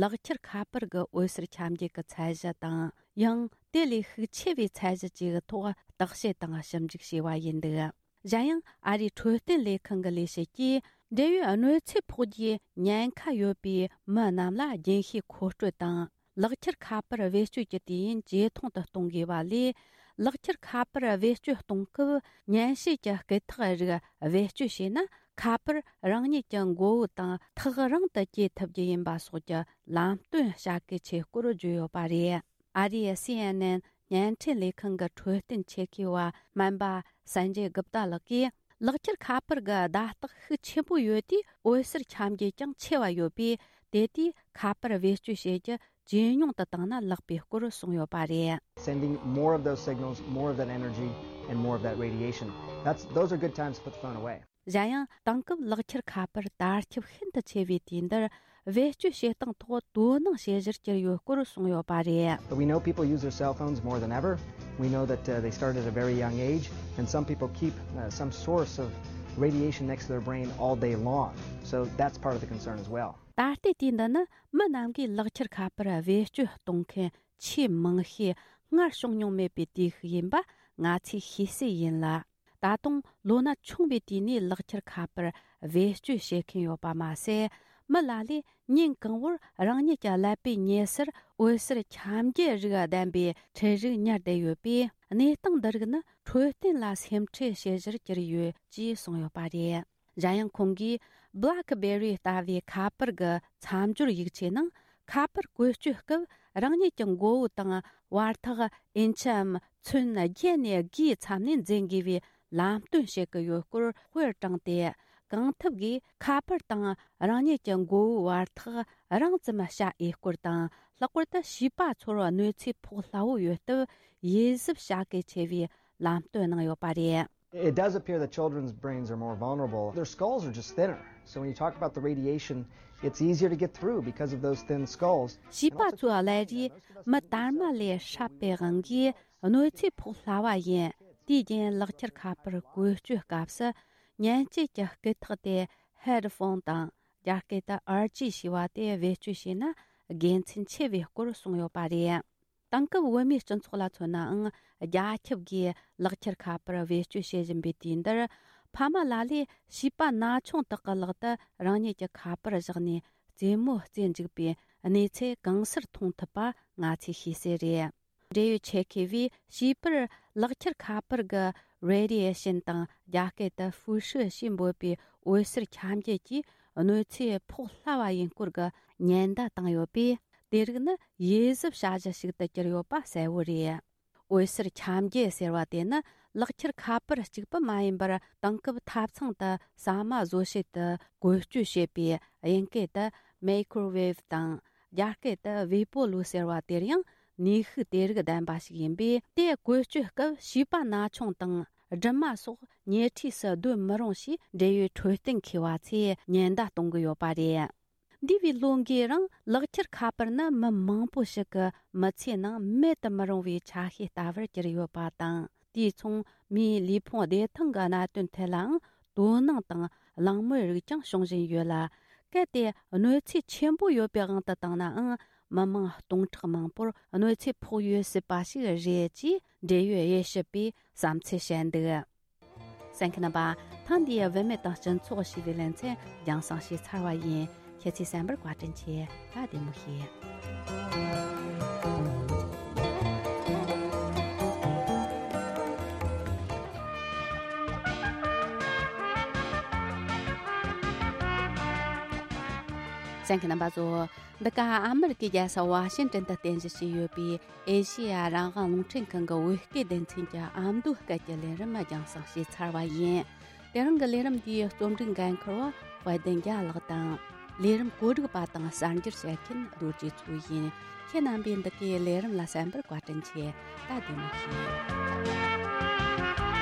ལག་ཁྱེར་ཁ་པར་གྱི་འོད་ཟེར་ཁྱབ་འགྱེད་ཀྱི་ཚད་གཞི་དང་ ཡང་དེ་ལས་ཤུགས་ཆེ་བའི་ཚད་གཞི་ཅིག་གི་ཐོག་བརྟག་དཔྱད་དང་ཞིབ་འཇུག་བྱས་པ་ཡིན་འདུག། གཞན་ཡང་ཨ་རིའི་འཕྲོད་བསྟེན་ལས་ཁང་གི་ལས་བྱེད་ཀྱིས་འབྲེལ་ཡོད་གནོད་འཚེ་ཕོག་རྒྱུའི་ཉེན་ཁ་ཡོད་པའི་མི་རྣམས་ལ་རྒྱུན་ཤེས་མཁོ་སྤྲོད་དང་། ལག་ཁྱེར་ཁ་པར་བེད་སྤྱོད་ཀྱི་དུས་ཡུན་ཇེ་ཐུང་དུ་གཏོང་དགོས་པ་ལས། ལག་ཁྱེར་ཁ་པར་བེད་སྤྱོད་གཏོང་སྐབས་ཉན་བྱེད་ཀྱི་སྐད་ཐག་རིགས་བེད་སྤྱོད་བྱས་ན། ཁ་པར་རང་ཉིད་ཀྱི་མགོ་བོ་དང་ཐག་རིང་དུ་བསྐྱེད་ཐུབ་རྒྱུ་ཡིན་པ་སོགས་ཀྱི་ལམ་སྟོན་བྱ་གལ་ཆེ་སྐོར་བརྗོད་ཡོད་པ་རེད། ཨ་རིའི་སི་ཨེན་ཨེན་བརྙན་འཕྲིན་ལས་ཁང་གི་འཕྲོད་བསྟེན་ཆེད་མཁས་པ་སྨན་པ་སན་ཇེ་གུབ་ཏཱ་ལགས་ཀྱིས། ལག་ཁྱེར་ཁ་པར་གྱི་བརྡ་རྟགས་ཤུགས་ཆེན་པོ་ཡོད་དུས་འོད་ཟེར་ཁྱབ་འགྱེད་ཀྱང་ཆེ་བ་ཡོད་པས། དེ་དུས་ཁ་པར་བེད་སྤྱོད་བྱེད་རྒྱུ་ཇེ་ཉུང་དུ་བཏང་ན་ལེགས་པའི་སྐོར་གསུངས་ཡོད་པ་རེད། Sending more of those signals, more of that energy, and more of that radiation. That's, those are good times to put the phone away. གཞན་ཡང་དེང་སྐབས་ལག་ཁྱེར་ཁ་པར་དར་ཁྱབ་ཤིན་ཏུ་ཆེ་བའི་དུས་འདིར་བེད་སྤྱོད་བྱེད་སྟངས་ཐོག་དོ་སྣང་བྱེད་གཞིར་གྱུར་ཡོད་སྐོར་གསུངས་ཡོད་པ་རེད། But we know people use their cell phones more than ever. We know that uh, they start at a very young age, and some people keep uh, some source of radiation next to their brain all day long. So that's part of the concern as well. ད་ལྟའི་དུས་འདི་ནི་མི་རྣམས་ཀྱིས་ལག་ཁྱེར་ཁ་པར་བེད་སྤྱོད་གཏོང་མཁན་ཆེས་མང་ཤོས་སྔར་བྱུང་མྱོང་མེད་པའི་དུས་ཤིག་ཡིན་པ་ང་ཚོས་ཤེས་གསལ་ཡིན་ལ། ད་དུང་ལོ་ན་ཆུང་བའི་དུས་ནས་ལག་ཁྱེར་ཁ་པར་བེད་སྤྱོད་བྱེད་མཁན་ཡོད་པ་མ་ཟད། མི་ལ་ལས་ཉིན་གང་བོར་རང་ཉིད་ཀྱི་ཀླད་པའི་ཉེ་སར་འོད་ཟེར་ཁྱབ་འགྱེད་རིགས་ལྡན་པའི་འཕྲུལ་རིགས་ཉར་བསྡད་ཡོད་པས། གནས་སྟངས་འདི་རིགས་ནི་འཕྲོད་བསྟེན་ལ་སེམས་ཁྲལ་བྱེད་གཞིར་གྱུར་ཡོད་ཅེས་གསུངས་ཡོད་པ་རེད། གཞན་ཡང་ཁོང་གིས་BlackBerry་ལྟ་བུའི་ཁ་པར་གྱི་མཚམས་སྦྱོར་ཡིག་ཆའི་ནང་ཁ་པར་བཀོལ་སྤྱོད་སྐབས་རང་ཉིད་ཀྱི་མགོ་བོ་དང་བར་ཐག་ཨིན་ཆིའམ་ཚོན་བརྒྱད་ནས་བརྒྱའི་མཚམས་ནས་འཛིན་དགོས་པའི་ལམ་སྟོན་བྱེད་ཀྱི་ཡོད་སྐོར་དཔེར་དྲངས་ཏེ། གང་ཐུབ་ཀྱིས་ཁ་པར་དང་རང་ཉིད་ཀྱི་མགོ་བོའི་བར་ཐག་རིང་ཙམ་བྱ་འོས་སྐོར་དང་། ལྷག་པར་དུ་བྱིས་པ་ཚོར་གནོད་འཚེ་ཕོག་སླ་བོ་ཡོད་སྟབས་ཡིད་གཟབ་བྱ་གལ་ཆེ་བའི་ལམ་སྟོན་གནང་ཡོད་པ་རེད། It does appear that children's brains are more vulnerable. Their skulls are just thinner. So when you talk about the radiation, it's easier to get through because of those thin skulls. བྱིས་པ་ཚོའི་ཀླད་རིས་མི་དར་མ་ལས་སྲབ་པའི་དབང་གིས་གནོད་འཚེ་ཕོག་སླ་བ་ཡིན། དེའི་རྐྱེན་ལག་ཁྱེར་ཁ་པར་བཀོལ་སྤྱོད་སྐབས་སུ་ཉན་བྱེད་ཀྱི་སྐད་ཐག་དེ་ཧེ་ཌི་ཕོན་དང་། རྒྱ་སྐད་དུ་ཨར་ཇི་ཞེས་པ་དེ་བེད་སྤྱོད་བྱས་ན་དགེ་མཚན་ཆེ་བའི་སྐོར་གསུངས་ཡོད་པ་རེད། དེང་སྐབས་བོད་མིའི་སྤྱི་ཚོགས་ལ་མཚོན་ནའང་རྒྱ་ཁྱབ་ཀྱིས་ལག་ཁྱེར་ཁ་པར་བེད་སྤྱོད་བྱེད་བཞིན་པའི་དུས་འདིར། ཕ་མ་ལ་ལས་བྱིས་པ་ན་ཆུང་དག་གི་ལག་ཏུ་རང་ཉིད་ཀྱི་ཁ་པར་བཞག་ནས་རྩེད་མོ་རྩེ་འཇུག་པའི་གནས་ཚུལ་གང་སར་མཐོང་ཐུབ་པ་ང་ཚོས་ཤེས་གསལ་རེད། འབྲེལ་ཡོད་ཆེད་མཁས་པས་བྱིས་པར་ལག་ཁྱེར་ཁ་པར་གྱི་རེ་ཌི་ཡེ་ཤིན་དང་རྒྱ་སྐད་དུ་ཧྥུ་ཧྲི་ཞེས་འབོད་པའི་འོད་ཟེར་ཁྱབ་འགྱེད་ཀྱིས་གནོད་འཚེ་ཕོག་སླ་བ་ཡིན་སྐོར་གྱི་ཉེན་བརྡ་བཏང་ཡོད་པས། དེ་རིགས་ནི་ཡིད་གཟབ་བྱ་གཞི་ཞིག་ཏུ་གྱུར་ཡོད་པ་གསལ་བོ་རེད། འོད་ཟེར་ཁྱབ་འགྱེད་ཟེར་བ་དེ་ནི་ལག་ཁྱེར་ཁ་པར་གཅིག་པུ་མ་ཡིན་པར། དེང་སྐབས་ཐབ་ཚང་དུ་ཟ་མ་བཟོ་བྱེད་དུ་བཀོལ་སྤྱོད་བྱེད་པའི་དབྱིན་སྐད་དུ་མེ་ཁོར་ཝེབ་དང་། རྒྱ་སྐད་དུ་ཝེ་པོ་ལུ་ཟེར་བ་དེར་ཡང་ནུས་ཤུགས་དེ་རིགས་ལྡན་པ་ཞིག་ཡིན་པས། དེ་བཀོལ་སྤྱོད་སྐབས་བྱིས་པ་ན་ཆུང་དང་སྦྲུམ་མ་སོགས་ཉེ་འཁྲིས་སུ་སྡོད་མི་རུང་ཞེས་འབྲེལ་ཡོད་འཕྲོད་བསྟེན་མཁས་པ་ཚོས་ཉེན་བརྡ་གཏོང་གི་ཡོད་པ་རེད། འདས་པའི་ལོ་འགའི་རིང་ལག་ཁྱེར་ཁ་པར་ནི་མི་མང་པོ་ཞིག་གི་མི་ཚེའི་ནང་མེད་དུ་མི་རུང་བའི་ཆ་ཤས་ལྟ་བུར་གྱུར་ཡོད་པ་དང་། དེས་མཚུངས་མིའི་ལུས་ཕུང་བདེ་ཐང་གི་གནད་དོན་ཐད་ལའང་དོ་སྣང་དང་གླེང་མོལ་རིགས་ཀྱང་བྱུང་བཞིན་ཡོད་ལ། གལ་ཏེ་གནོད་འཚེ་ཆེན་པོ་ཡོད་པའི་དབང་དུ་བཏང་ནའང་། མི་མང་སྟོང་ཕྲག་མང་པོར་གནོད་འཚེ་ཕོག་ཡོད་སྲིད་པ་ཞིག་རེད་ཅེས་འབྲེལ་ཡོད་དབྱེ་ཞིབ་པས་བསམ་ཚུལ་བཤད་འདུག། གསན་མཁན་རྣམ་པ། ཐེངས་འདིའི་བུད་མེད་དང་སྤྱི་ཚོགས་ཞེས་པའི་ལེ་ཚན་རྒྱང་སྲིང་བྱས་ཚར་བ་ཡིན། ཁྱེད་ཚོས་གསན་པར་བཀའ་དྲིན་ཆེ། ད་བདེ་མོ་བྱོས། གསན་མཁན་རྣམ་པ་ཚོ། འདི་ག་ཨ་མི་རི་ཀའི་རྒྱལ་ས་ཝ་ཤིང་ཏོན་དུ་རྟེན་གཞི་བྱས་ཡོད་པའི་ཨེ་ཤེ་ཡ་རང་དབང་རླུང་འཕྲིན་ཁང་གི་བོད་སྐད་སྡེ་ཚན་གྱི་ཨ་མདོའི་སྐད་ཀྱི་ལས་རིམ་རྒྱང་སྲིང་བྱས་ཚར་བ་ཡིན། དེ་རིང་གི་ལས་རིམ་འདིའི་རྩོམ་སྒྲིག་འགན་འཁུར་བ་དཔལ་ལྡན་རྒྱལ་ལགས་དང་། ལས་རིམ་གོ་སྒྲིག་པ་དང་གསར་འགྱུར་བཤད་མཁན་རྡོ་རྗེ་མཚོ་ཡིན། ཁྱེད་རྣམ་པས་འདི་གའི་ལས་རིམ་ལ་གསན་པར་བཀའ་དྲིན་ཆེ། ད་བདེ་མོ་བྱོས།